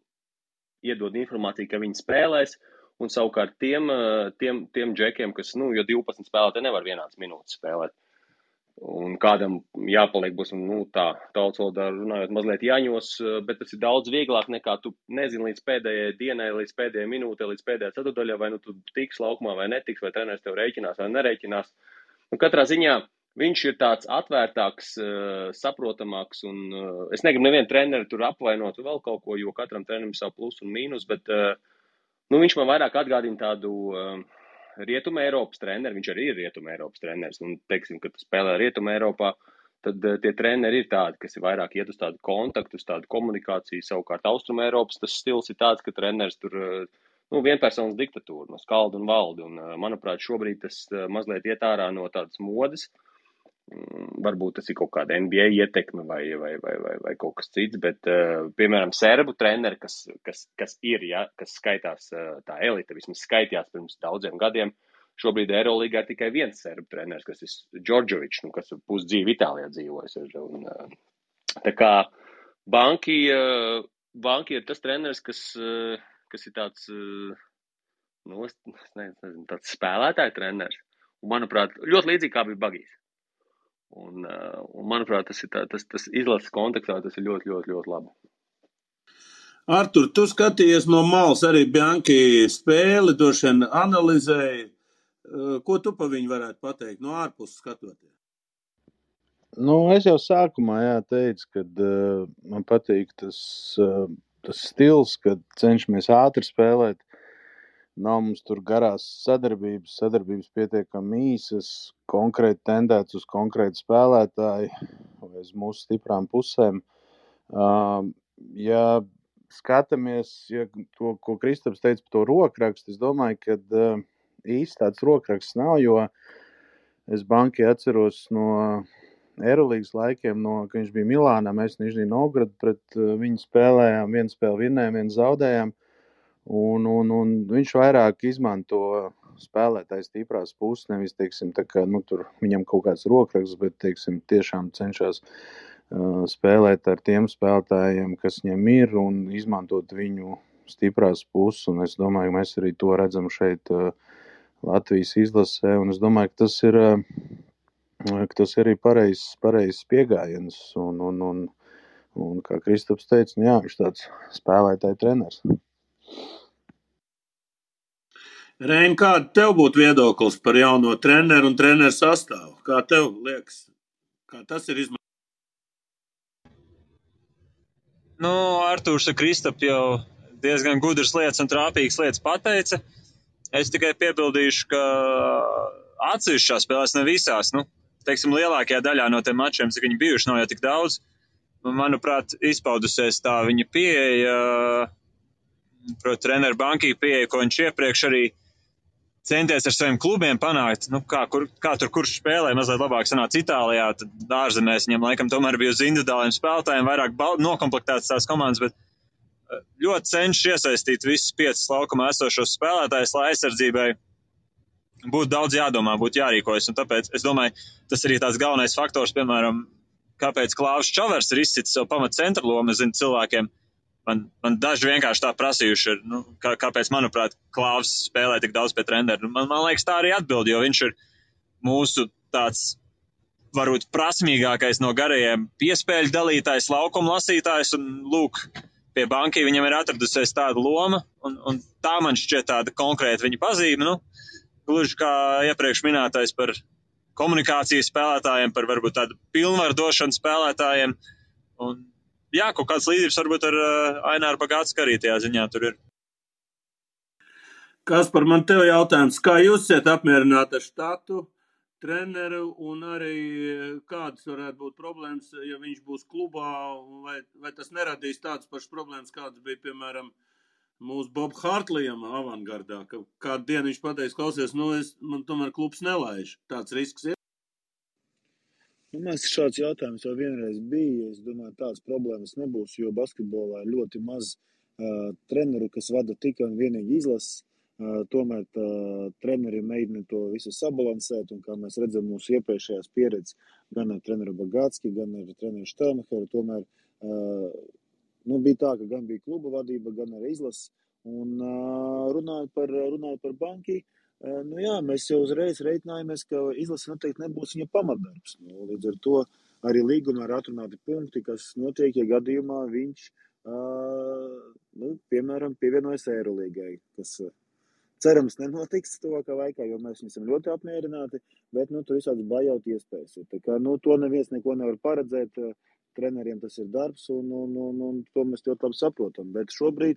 iedod informāciju, ka viņi spēlēs, un savukārt tiem džekiem, kas, jo 12 spēlētāji nevar vienāds minūtes spēlēt. Un kādam jāpaliek būs, tā tautas valodā runājot mazliet jāņos, bet tas ir daudz vieglāk nekā tu nezini līdz pēdējai dienai, līdz pēdējai minūtei, līdz pēdējai ceturdaļai, vai tu tiks laukumā vai netiks, vai treneris tev rēķinās vai nereiķinās. Katrā ziņā viņš ir tāds atvērtāks, saprotamāks, un es negribu nevienu treneri tur apvainot vēl kaut ko, jo katram trenerim savu plus un mīnus, bet viņš man vairāk atgādina tādu Rietuma Eiropas treneri, viņš arī ir Rietuma Eiropas treneris, un teiksim, ka tu spēlē Rietuma Eiropā, tad tie treneri ir tādi, kas ir vairāk iet uz tādu kontaktu, uz tādu komunikāciju, savukārt Austruma Eiropas tas stils ir tāds, ka treneris tur, vienpersonas diktatūra, skalda un valda, un manuprāt, šobrīd tas mazliet iet ārā no tādas modes, varbūt tas ir kaut kāda NBA ietekme vai kaut kas cits, bet, piemēram, serbu treneri, kas ir, kas skaitās tā elite, vismaz skaitījās pirms daudziem gadiem, šobrīd Eirolīgā ir tikai viens serbu treneris, kas ir Džordžovičs, kas pusdzīvi Itālijā dzīvojas. Tā kā Banki ir tas treneris, kas ir tāds, tāds spēlētāja treneris, un, manuprāt, ļoti līdzīgi kā bija Bagijs. Un manuprāt, tas izlases kontekstā tas ir ļoti, ļoti, ļoti labi. Artur, tu skatījies no malas arī Bianki spēli, droši vien analizēji. Ko tu pa viņu varētu pateikt no ārpuses skatoties? Nu, es jau sākumā teicu, ka man patīk tas stils, kad cenšamies ātri spēlēt. Nav mums tur garās sadarbības pietiekami īsas, konkrēti tendēts uz konkrētu spēlētāju vai uz mūsu stiprām pusēm. Ja skatāmies, to, ko Kristaps teica par to rokrakstu, es domāju, ka īsti tāds rokraksts nav, jo es Banki atceros no Eirolīgas laikiem, kad viņš bija Milānā, mēs Nižnij Novgorod pret viņu spēlējām, vienu spēli vinnējām, vienu zaudējām, un viņš vairāk izmanto spēlētājs stiprās puses, nevis, teiksim, tā kā, tur viņam kaut kāds rokraksts, bet, teiksim, tiešām cenšas spēlēt ar tiem spēlētājiem, kas viņam ir, un izmantot viņu stiprās puses, un es domāju, mēs arī to redzam šeit Latvijas izlasē, un es domāju, ka tas ir arī pareizs pieejams, un kā Kristaps teica, jā, viņš tāds spēlētāja treneris. Rein, kāda tev būtu viedoklis par jauno treneru un treneru sastāvu? Kā tev liekas? Kā tas ir izmantots? Nu, Artūrs ar Kristapu jau diezgan gudras lietas un trāpīgas lietas pateica. Es tikai piebildīšu, ka atsevišķās spēlēs ne visās, teiksim, lielākajā daļā no tiem mačiem, cik viņi bijuši, nav jau tik daudz. Manuprāt, izpaudusies tā viņa pieeja, proti treneru Banki pieeja, ko viņš iepriekš arī centies ar saviem klubiem panākt. Kā tur kurš spēlē, mazliet labāk sanāca Itālijā, tad ārzemēs viņam laikam tomēr bija uz individuāliem spēlētājiem vairāk nokomplektētas tās komandas, bet ļoti cenšas iesaistīt visus 5 laukumā esošos spēlētājus, lai aizsardzībai būtu daudz jādomā, būtu jārīkojas. Un tāpēc es domāju, tas arī tāds galvenais faktors, piemēram, kāpēc Klāvs Čavers ir izcitis savu pamatu centra lomu. Es zinu, cilvēkiem man daži vienkārši tā prasījuši ir, kāpēc, manuprāt, Klāvs spēlē tik daudz pie treneru. Man liekas, tā arī atbild, jo viņš ir mūsu tāds varbūt prasmīgākais no garajiem piespēļu dalītājs, laukuma lasītājs, un lūk, pie Banki viņam ir atradusies tāda loma, un tā man šķiet tāda konkrēta viņa pazīme, gluži kā iepriekš minētais par komunikācijas spēlētājiem, par varbūt tādu pilnvaru došanu spēlētājiem, un jā, kaut kāds līdzības varbūt ar Aināru Bagātsku arī tajā ziņā tur ir. Kaspar, man tev jautājums, kā jūs esat apmierināti ar štatu, treneru, un arī kādas varētu būt problēmas, ja viņš būs klubā, vai tas neradīs tādas pašas problēmas, kādas bija, piemēram, mūsu Bob Hartlijam avangardā, ka kādu dienu viņš pateiks, klausies, man tomēr klubs nelaiž. Tāds risks ir? Man liekas, šāds jautājums jau vienreiz bija. Es domāju, tādas problēmas nebūs, jo basketbolā ir ļoti maz treneru, kas vada tikai un vienīgi izlases. Tomēr treneri mēģina to visu sabalansēt, un kā mēs redzam mūsu iepriekšējās pieredzes, gan ar treneru Bagātski, gan ar treneru Štelmacheru, tomēr bija tā, ka gan bija kluba vadība, gan arī izlases, un runājot par Banki, jā, mēs jau uzreiz reiķinājāmies, ka izlase noteikti nebūs viņa pamatdarbs. Līdz ar to arī līgumā ir atrunāti punkti, kas notiek, ja gadījumā viņš, piemēram, pievienojas Eirolīgai, kas cerams nenotiks tuvākā laikā, jo mēs esam ļoti apmierināti, bet tur visādas bajauti iespējas. Tā kā, to neviens neko nevar paredzēt, treneriem tas ir darbs, un to mēs ļoti labi saprotam. Bet šobrīd,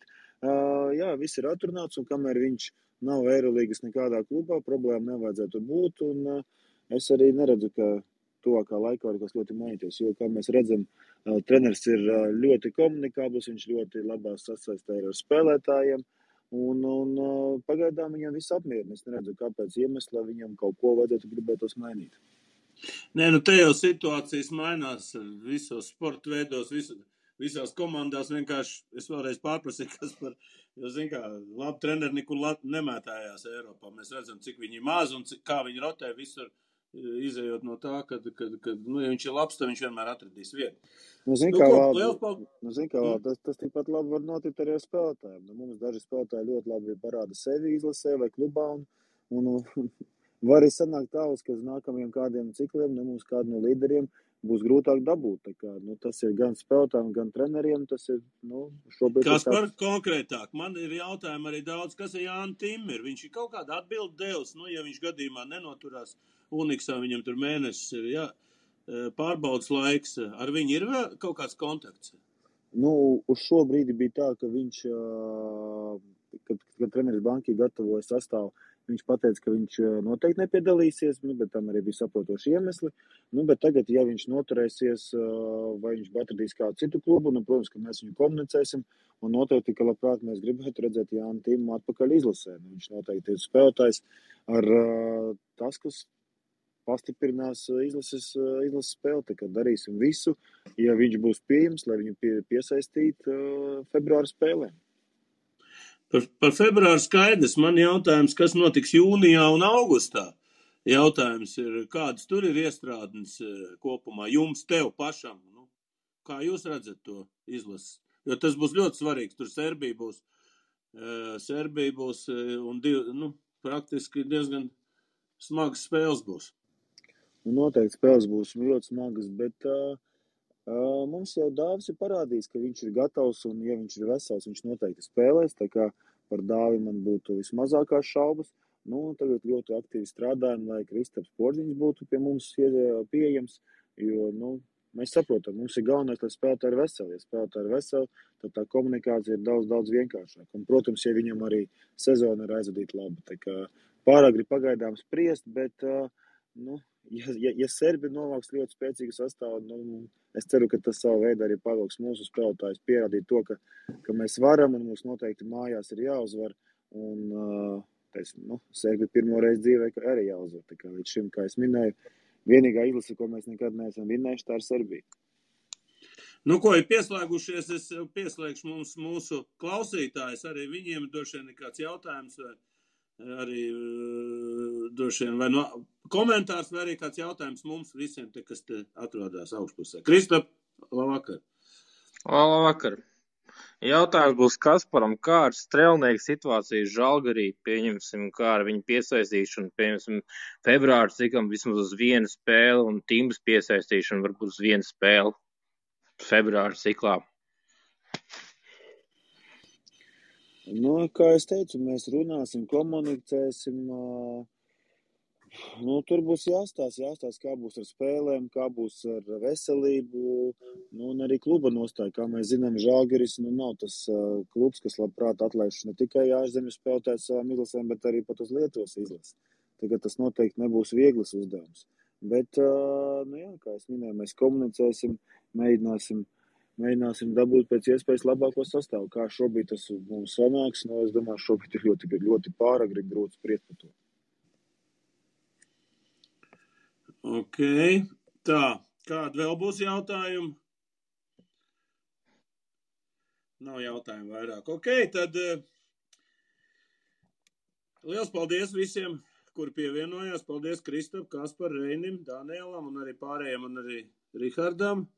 jā, viss ir atrunāts, un kamēr viņš nav Eirolīgas nekādā klubā, problēma nevajadzētu būt, un es arī neredzu, ka tuvākā laikā var kas ļoti mainīties, jo, kā mēs redzam, treneris ir ļoti komunikābls, viņš ļoti labās sasaistē ar spēlētājiem, un pagaidām viņam viss apmierina. Es neredzu, kāpēc iemesla viņam kaut ko vajadzētu gribētos mainīt. Nē, te jau situācijas mainās visos sporta veidos, visās komandās. Vienkārši es vēlreiz pārprasīju, kas par, jo, zin kā, labi treneri nekur nemētājās Eiropā. Mēs redzam, cik viņi maz un kā viņi rotē visur, izējot no tā, ka ja viņš ir labs, tad viņš vienmēr atradīs vietu. Tas tikpat labi var notikt arī ar spēlētājiem. Mums daži spēlētāji ļoti labi parāda sevi izlasē vai klubā, un Var arī sanākt tā, ka uz nākamajiem kādiem cikliem, mums kādu no līderiem būs grūtāk dabūt. Tā kā, tas ir gan spēlētājiem, gan treneriem. Tas ir, šobrīd Kas ir par tāds... konkrētāk? Man ir jautājumi arī daudz, kas ir Jānis Timmer. Viņš ir kaut kādu atbildi devis, ja viņš gadījumā nenoturās Uniksā, viņam tur mēnesis ir, pārbaudas laiks. Ar viņu ir vēl kaut kāds kontakts? Uz šo brīdi bija tā, ka viņš, kad treneris bankī gatavoja sastāvu, viņš pateica, ka viņš noteikti nepiedalīsies, bet tam arī bija saprotoši iemesli. Bet tagad, ja viņš noturēsies, vai viņš atradīs kādu citu klubu, protams, ka mēs viņu komunicēsim, un noteikti, ka labprāt mēs gribētu redzēt Jānu Timu atpakaļ izlasē. Viņš noteikti ir spēlētājs ar tas, kas pastiprinās izlases spēli, tā kā darīsim visu, ja viņš būs pieejams, lai viņu piesaistītu februāra spēlēm. Par februāru skaidrs. Man jautājums, kas notiks jūnijā un augustā? Jautājums ir, kādas tur ir iestrādnes kopumā jums, tev pašam? Kā jūs redzat to izlases? Jo tas būs ļoti svarīgs. Tur Serbija būs un praktiski diezgan smagas spēles būs. Noteikti spēles būs ļoti smagas, bet mums jau Dāvis ir parādījis, ka viņš ir gatavs, un ja viņš ir vesels, viņš noteikti spēlēs, tā kā par Dāvi man būtu vismazākās šaubas. Tagad ļoti aktīvi strādājam, lai Kristaps Porziņš būtu pie mums pieejams, jo, mēs saprotam, mums ir galvenais, lai spēlētāji ir veseli. Ja spēlētāji ir veseli, tad tā komunikācija ir daudz vienkāršāka. Un, protams, ja viņam arī sezona ir aizvadīta labi, tā kā pāragri pagaidām spriest, bet, ja Serbi novāks ļoti spēcīgu sastāvu, es ceru, ka tas savu veidu arī pavilks mūsu spēlētājus pierādīt to, ka mēs varam un mums noteikti mājās ir jāuzvar. Un, Serbi pirmo reizi dzīvē arī jāuzvar. Tā kā līdz šim, kā es minēju, vienīgā izlase, ko mēs nekad neesam vinnējuši, tā ir Serbija. Ko ir pieslēgušies, es pieslēgšu mūsu klausītājus, arī viņiem droši vien kāds jautājums vai arī droši vien vai komentārs vai arī kāds jautājums mums visiem, kas te atrodas augšpusē. Kristap, labvakar. Labvakar. Jautājums būs Kasparam, kā ar Strelnieku situāciju Žalgarī, pieņemsim, kā ar viņu piesaistīšanu, pieņemsim, februāru cikam vismaz uz vienu spēli un Timbas piesaistīšanu varbūt uz vienu spēli februāru ciklā. Kā es teicu, mēs runāsim, komunicēsim, tur būs jāstāsta, kā būs ar spēlēm, kā būs ar veselību, un arī kluba nostāja. Kā mēs zinām, Žalgiris nav tas klubs, kas labprāt atlaiž ne tikai ārzemju spēlētājus savām izlasēm, bet arī pat uz Lietuvas izlasi. Tagad tas noteikti nebūs viegls uzdevums. Bet, kā es minēju, mēs komunicēsim, mēģināsim dabūt pēc iespējas labāko sastāvu. Kā šobrīd tas mums sanāks, es domāju, šobrīd ir ļoti, ļoti pāragri grūti spriest par to. Ok, tā, kāda vēl būs jautājumi? Nav jautājumu vairāk. Ok, tad liels paldies visiem, kuri pievienojās. Paldies Kristap, Kaspar, Reinim, Danielam un arī pārējiem un arī Rihardam.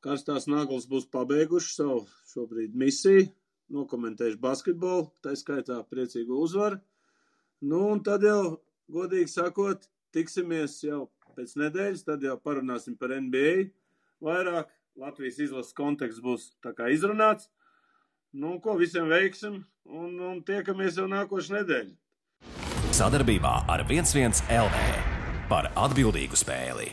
Karstās naglas būs pabeiguši savu šobrīd misiju, nokomentējuši basketbolu, tā skaitā priecīgu uzvaru. Un tad jau, godīgi sakot, tiksimies jau pēc nedēļas, tad jau parunāsim par NBA vairāk. Latvijas izlases konteksts būs tā kā izrunāts. Visiem veiksim un tiekamies jau nākošu nedēļu. Sadarbībā ar 11 LV par atbildīgu spēli.